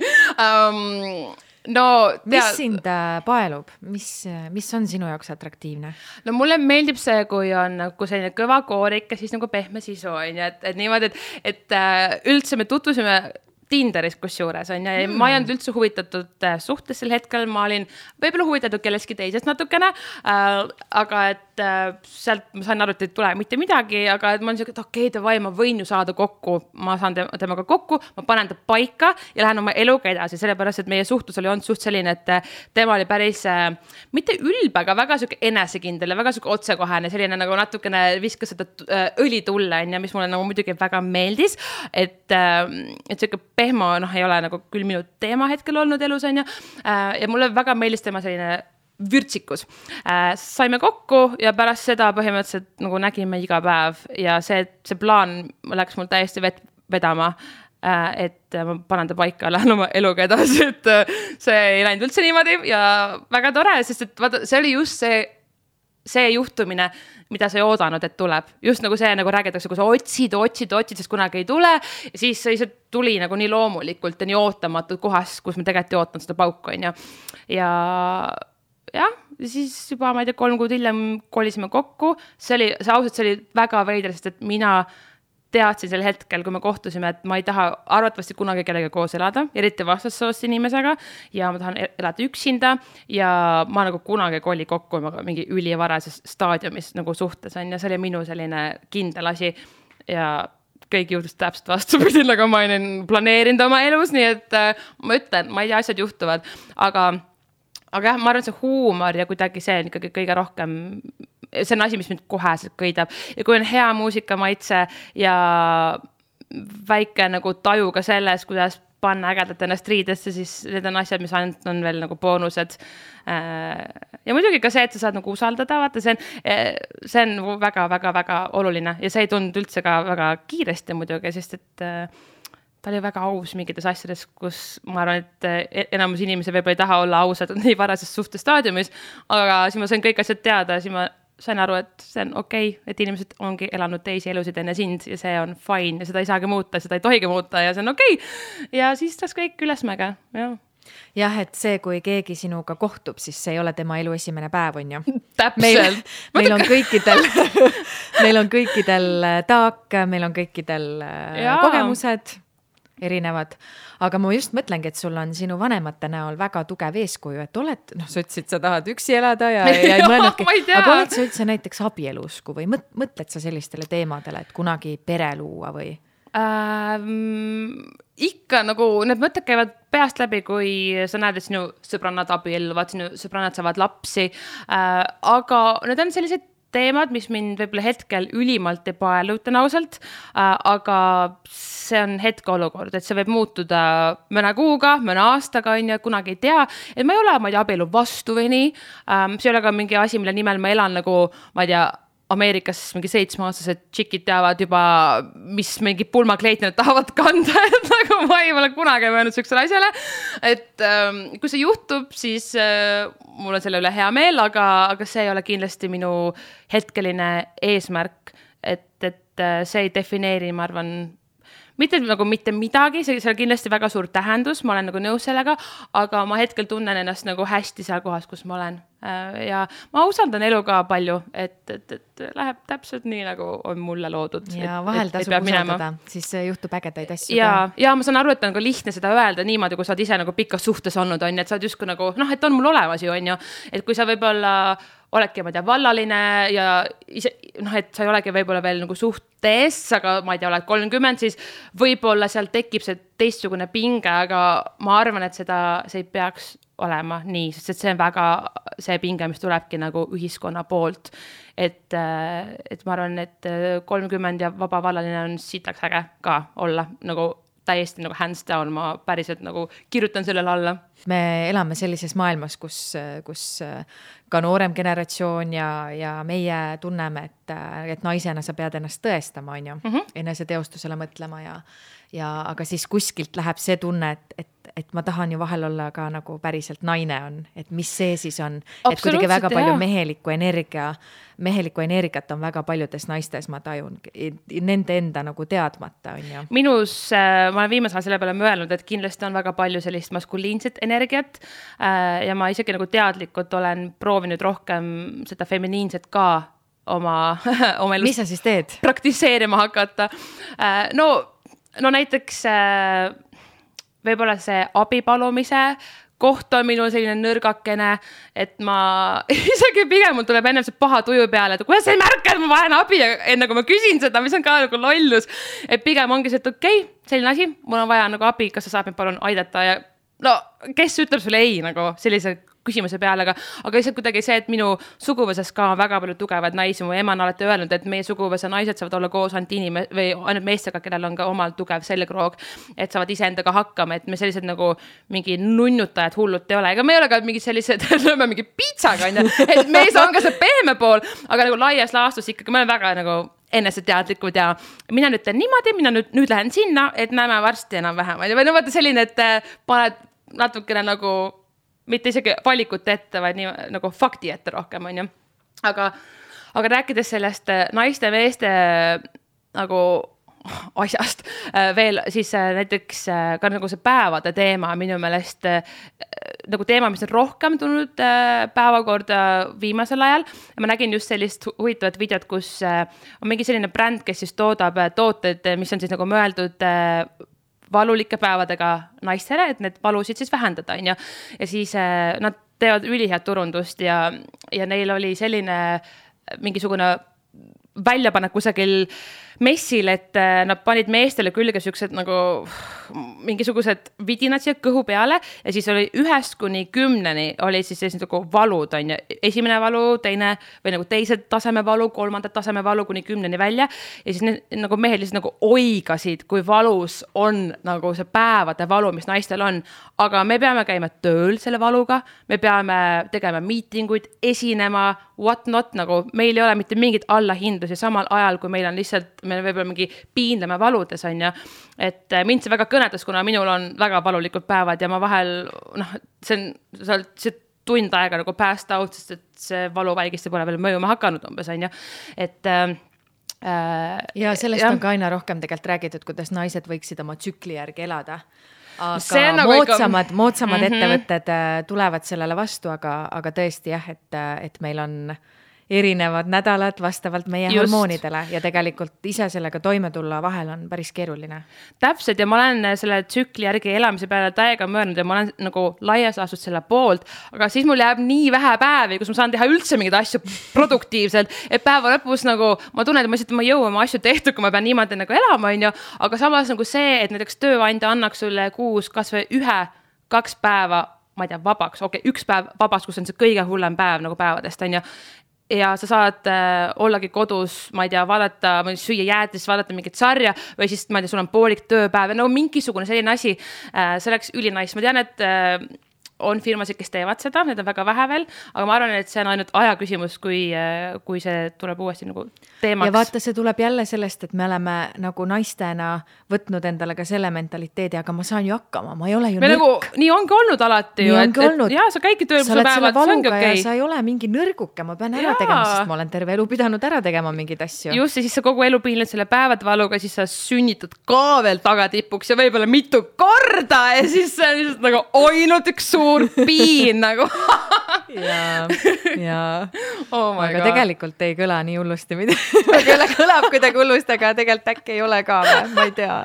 No, mis sind paelub? Mis on sinu jaoks atraktiivne? No mulle meeldib see, kui on nagu selline kõva koorik ja siis nagu pehme sisu on ja et niimoodi, et üldse me tutvusime Tinderis kusjuures on ja ma ei olnud üldse huvitatud suhtes sel hetkel, ma olin võib-olla huvitatud kelleski teisest natukene, aga et sealt ma sain aru, et ei tule mitte midagi, aga et ma olen siuke, et okei, ma võin ju saada kokku, ma saan temaga kokku, ma panen ta paika ja lähen oma eluga edasi, sellepärast, et meie suhtlus oli olnud suht selline, et tema oli päris mitte ülbe, aga väga siuke enesekindel ja väga siuke otsekohane, selline nagu natukene viskas seda õli tulle, mis mulle nagu muidugi väga meeldis, et siuke pehmo, ei ole nagu küll minu teema hetkel olnud elus, on ju. Ja mulle väga meeldis tema selline vürtsikus. Saime kokku ja pärast seda põhimõtteliselt nagu nägime iga päev ja see plaan läks mul täiesti vedama, et ma panen ta paika, lähen oma eluga edasi, et see ei läinud üldse niimoodi ja väga tore, sest et vaata, see oli just see juhtumine, mida sa ei oodanud, et tuleb. Just nagu see, nagu räägitakse, kui sa otsid, sest kunagi ei tule. Ja siis see tuli nagu nii loomulikult ja nii ootamatud kohas, kus me tegelikult ei ootanud seda pauku, on ju. Ja siis juba, ma ei tea, 3 kuud hiljem kolisime kokku. See oli väga veider, sest et mina teadsin sel hetkel, kui me kohtusime, et ma ei taha arvatavasti kunagi kellega koos elada, eriti vastassoost inimesega ja ma tahan elada üksinda ja ma nagu kunagi koli kokku mingi ülivarases staadiumis nagu suhtes on ja see oli minu selline kindel asi ja kõik juhtus täpselt vastupidi, nagu ma olin planeerinud oma elus, nii et ma ütlen, ma ei tea, asjad juhtuvad, aga jah, ma arvan, see huumor ja kuidagi see on ikkagi kõige rohkem, see on asi, mis mind koheselt kõidab. Ja kui on hea muusikamaitse ja väike nagu taju ka selles, kuidas panna ägedalt ennast riidesse, siis need on asjad, mis ainult on veel nagu boonused. Ja muidugi ka see, et sa saad nagu usaldada, vaata, see on väga oluline ja see ei tulnud üldse ka väga kiiresti muidugi, sest et ta oli väga aus mingites asjades, kus ma arvan, et enamus inimesi võib-olla ei taha olla ausad nii varases suhtestaadiumis, aga siis ma sain kõik asjad teada, siis ma sain aru, et see on okei, et inimesed ongi elanud teisi elusid enne sind ja see on fine ja seda ei saagi muuta, seda ei tohigi muuta ja see on okei. Ja siis tas kõik ülesmäge, jah. Jah, et see, kui keegi sinuga kohtub, siis see ei ole tema elu esimene päev, on ju. Täpselt. Meil on kõikidel taak, meil on kõikidel kogemused erinevad, aga ma just mõtlengi, et sul on sinu vanemate näol väga tugev eeskuju, et oled, sa ütlesid, sa tahad üksi elada ja ei mõelnudki, aga oled sa üldse näiteks abielusku või mõtled sa sellistele teemadele, et kunagi pere luua või? Ikka nagu need mõtted käivad peast läbi, kui sa näed, et sinu sõbrannad abielluvad, sinu sõbrannad saavad lapsi, aga need on sellised teemad, mis mind võib-olla hetkel ülimalt ei paelu, ütlen ausalt, aga see on hetkeolukord, et see võib muutuda mõne kuuga, mõne aastaga, on ju, kunagi ei tea, et ma ei ole, abielu vastu või nii, see ei ole ka mingi asi, mille nimel ma elan nagu, ma ei tea, Ameerikas mingi 7-aastased tšikid teavad juba, mis mingi pulmakleit nad tahavad kanda, et nagu ma ei ole kunagi mõelnud sellisele asjale, et kui see juhtub, siis mul on selle üle hea meel, aga see ei ole kindlasti minu hetkeline eesmärk, et see ei defineeri, ma arvan, mitte nagu mitte midagi, see on kindlasti väga suur tähendus, ma olen nagu nõus sellega, aga ma hetkel tunnen ennast nagu hästi seal kohas, kus ma olen. Ja ma usaldan elu ka palju, et läheb täpselt nii, nagu on mulle loodud. Ja vahel tasub usaldada, siis juhtub ägedaid asju. Ja ma saan aru, et on nagu lihtne seda öelda niimoodi, kui sa oled ise nagu pikas suhtes olnud, on, et sa oled justkui nagu, et on mul olemas ju, on ju, et kui sa võib-olla oledki, ma ei tea, vallaline ja ise, et sa ei olegi võib-olla veel nagu suhtes, aga ma ei tea, oled 30, siis võib-olla seal tekib see teistsugune pinge, aga ma arvan, et see ei peaks olema nii, sest see on väga see pinge, mis tulebki nagu ühiskonna poolt, et ma arvan, et 30 ja vaba vallaline on sitaks äge ka olla nagu täiesti nagu hands down, ma päriselt nagu kirjutan sellele alla. Me elame sellises maailmas, kus ka noorem generatsioon ja meie tunneme, et naisena sa pead ennast tõestama, on ju, enese teostusele mõtlema aga siis kuskilt läheb see tunne, et ma tahan ju vahel olla ka nagu päriselt naine on, et mis see siis on, et kuidagi väga palju mehelikku energiat on väga paljudes naistes, ma tajun, nende enda nagu teadmata on ju. Minus, ma olen viimasel selle peale mõelnud, et kindlasti on väga palju sellist maskuliinset energiat ja ma isegi nagu teadlikult olen proovinud rohkem seda feminiinset ka oma elus. Mis sa siis teed? Praktiseerima hakata. No näiteks võib-olla see abipalumise koht on minul selline nõrgakene, et ma isegi pigem mul tuleb enne see paha tuju peale, et kuidas sa ei märka, et ma vajan abi enne kui ma küsin seda, mis on ka nagu lollus, et pigem ongi see, et okei, selline asi, mul on vaja nagu abi, kas sa saad mind palun aidata ja kes ütleb sulle ei nagu sellise küsimuse peale, aga lihtsalt kuidagi see, et minu suguvõsas ka on väga palju tugevad naisi, mu ema on alati öelnud, et meie suguvõsa naised saavad olla koos ainult meestega, kellel on ka omal tugev selgroog, et saavad iseendaga hakkama, et me sellised nagu mingi nunnutajad hullud ei ole, ega me ei ole ka mingi sellised, lööme mingi piitsaga, et mees on ka see pehme pool, aga nagu laias laastus ikkagi, me oleme väga nagu eneseteadlikud ja mina nüüd teen niimoodi, mina nüüd lähen sinna, et näeme varsti enam-vähem, või vaata selline, et paned natukene nagu mitte isegi valikut ette, vaid nii nagu fakti ette rohkem, on ju. Aga rääkides sellest naiste meeste nagu asjast veel, siis näiteks ka nagu see päevade teema minu meelest nagu teema, mis on rohkem tulnud päevakorda viimasel ajal. Ma nägin just sellist huvitavat videot, kus on mingi selline bränd, kes siis toodab tooted, mis on siis nagu mõeldud valulike päevadega naistele, et need valusid siis vähendada, on ju. Ja siis nad teevad ülihead turundust ja neil oli selline mingisugune väljapanek kusagil messil, et nad panid meestele külge siuksed nagu mingisugused vidinad siia kõhu peale ja siis oli 1-10 oli siis sellised nagu valud, on ju. Esimene valu, teine või nagu teised taseme valu, kolmandat taseme valu kuni 10 välja ja siis nagu mehed lihtsalt nagu oigasid, kui valus on nagu see päevade valu, mis naistel on. Aga me peame käima tööl selle valuga, me peame tegema miitinguid, esinema, what not, nagu meil ei ole mitte mingit allahindlusi samal ajal, kui meil on lihtsalt me võib-olla mingi piinleme valudes, on ju. Et mind see väga kõnetas, kuna minul on väga valulikud päevad ja ma vahel, see tund aega nagu passed out, sest et see valuvälgiste pole veel mõjuma hakanud umbes, on ju. Et ja sellest on ka aina rohkem tegelikult räägitud, kuidas naised võiksid oma tsükli järgi elada. Aga nagu moodsamad ettevõtted tulevad sellele vastu, aga tõesti jah, et meil on erinevad nädalad vastavalt meie hormoonidele ja tegelikult ise sellega toime tulla vahel on päris keeruline. Täpselt ja ma olen selle tsükli järgi elamise peale täiega mõelnud ja ma olen nagu laias laastud selle poolt, aga siis mul jääb nii vähe päevi, kus ma saan teha üldse mingeid asju produktiivselt, et päeva lõpus nagu ma tunnen, et ma ei jõua oma asju tehtud, kui ma pean niimoodi nagu elama, on ju, aga samas nagu see, et näiteks tööandja annaks sulle kuus kas või 1-2 päeva, ma ei tea, vabaks, üks päev vabaks, kus on see kõige hullem päev nagu päevadest, on ju. Ja sa saad ollagi kodus, ma ei tea, vaadata, süüa jäätis, vaadata mingit sarja või siis, ma ei tea, sul on poolik tööpäev ja nagu mingisugune selline asi, see oleks ülinais. Ma tean, et on firmasid, kes teevad seda, need on väga vähe veel, aga ma arvan, et see on ainult aja küsimus, kui see tuleb uuesti nagu teemaks. Ja vaata, see tuleb jälle sellest, et me oleme nagu naistena võtnud endale ka selle mentaliteedi, aga ma saan ju hakkama, ma ei ole ju nõrk. Nagu, nii ongi olnud alati ju, et sa käidki tööl, sa oled selle valuga ja sa ei ole mingi nõrguke, ma pean ära tegema, sest ma olen terve elu pidanud ära tegema mingid asju. Just, ja siis sa kogu elu piinled selle päevad valuga, siis sa sünnitad ka veel tagatipuks ja võib-olla mitu korda ja siis see on lihtsalt nagu ainult üks suur piin nagu. ja. Oh aga God. Tegelikult ei kõla nii hullusti midagi. Kõlab kuidagi hullusti, aga tegelikult äkki ei ole ka või, ma ei tea.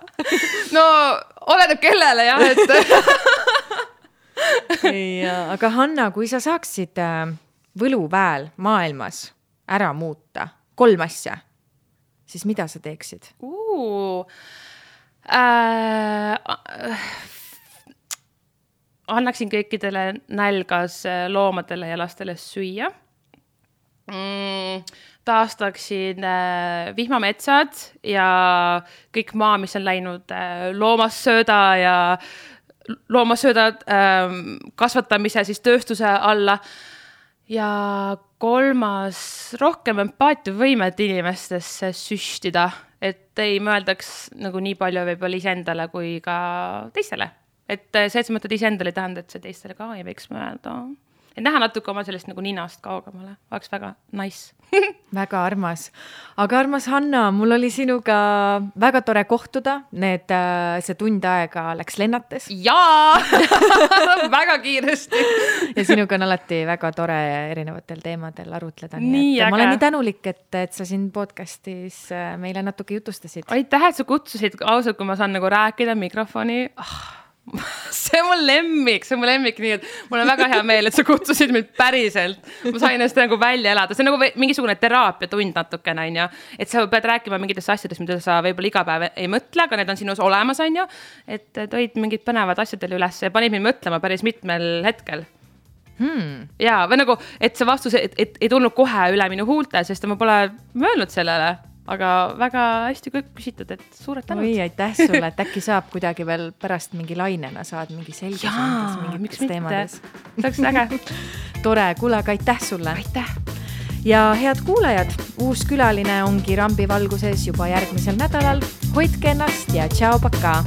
No, oleneb kellele jah, aga Hanna, kui sa saaksid võluväel maailmas ära muuta 3 asja, siis mida sa teeksid? Annaksin kõikidele nälgas loomadele ja lastele süüa. Taastaksin vihmametsad ja kõik maa, mis on läinud loomassööda kasvatamise siis tööstuse alla. Ja 3, rohkem empaatiavõimet inimestesse süstida, et ei mõeldaks nagu nii palju võib-olla iseendale kui ka teistele. Et see, et sa mõtled iseendale ei tähenda, et see teistele ka ei võiks mõelda. Et näha natuke oma sellest nagu ninast kaugemale. Oleks väga nice. Väga armas. Aga armas Hanna, mul oli sinuga väga tore kohtuda. See tund aega läks lennates. Jaa! Väga kiiresti. Ja sinuga on alati väga tore erinevatel teemadel arutleda. Nii ma olen nii tänulik, et sa siin podcastis meile natuke jutustasid. Aitäh, et sa kutsusid ausalt, kui ma saan nagu rääkida mikrofoni. See on mul lemmik, nii et mul on väga hea meel, et sa kutsusid mind päriselt. Ma sain ennast nagu välja elada. See on nagu mingisugune teraapiatund natukene, on ju. Et sa pead rääkima mingitest asjadest, mida sa võib-olla iga päev ei mõtle, aga need on sinus olemas, on ju. Et toid mingid põnevad asjadele üles ja panid mind mõtlema päris mitmel hetkel. Ja, või nagu, et see vastus et ei tulnud kohe üle minu huulte, sest ma pole mõelnud sellele. Aga väga hästi küsitud, et suured tänud. Oi, aitäh sulle, et äkki saab kuidagi veel pärast mingi lainena saad mingi selgus mingites teemades. See oleks äge. Tore, kuule, aga aitäh sulle. Aitäh. Ja head kuulajad, uus külaline ongi Rambi valguses juba järgmisel nädalal. Hoidke ennast ja tšau, pakaa!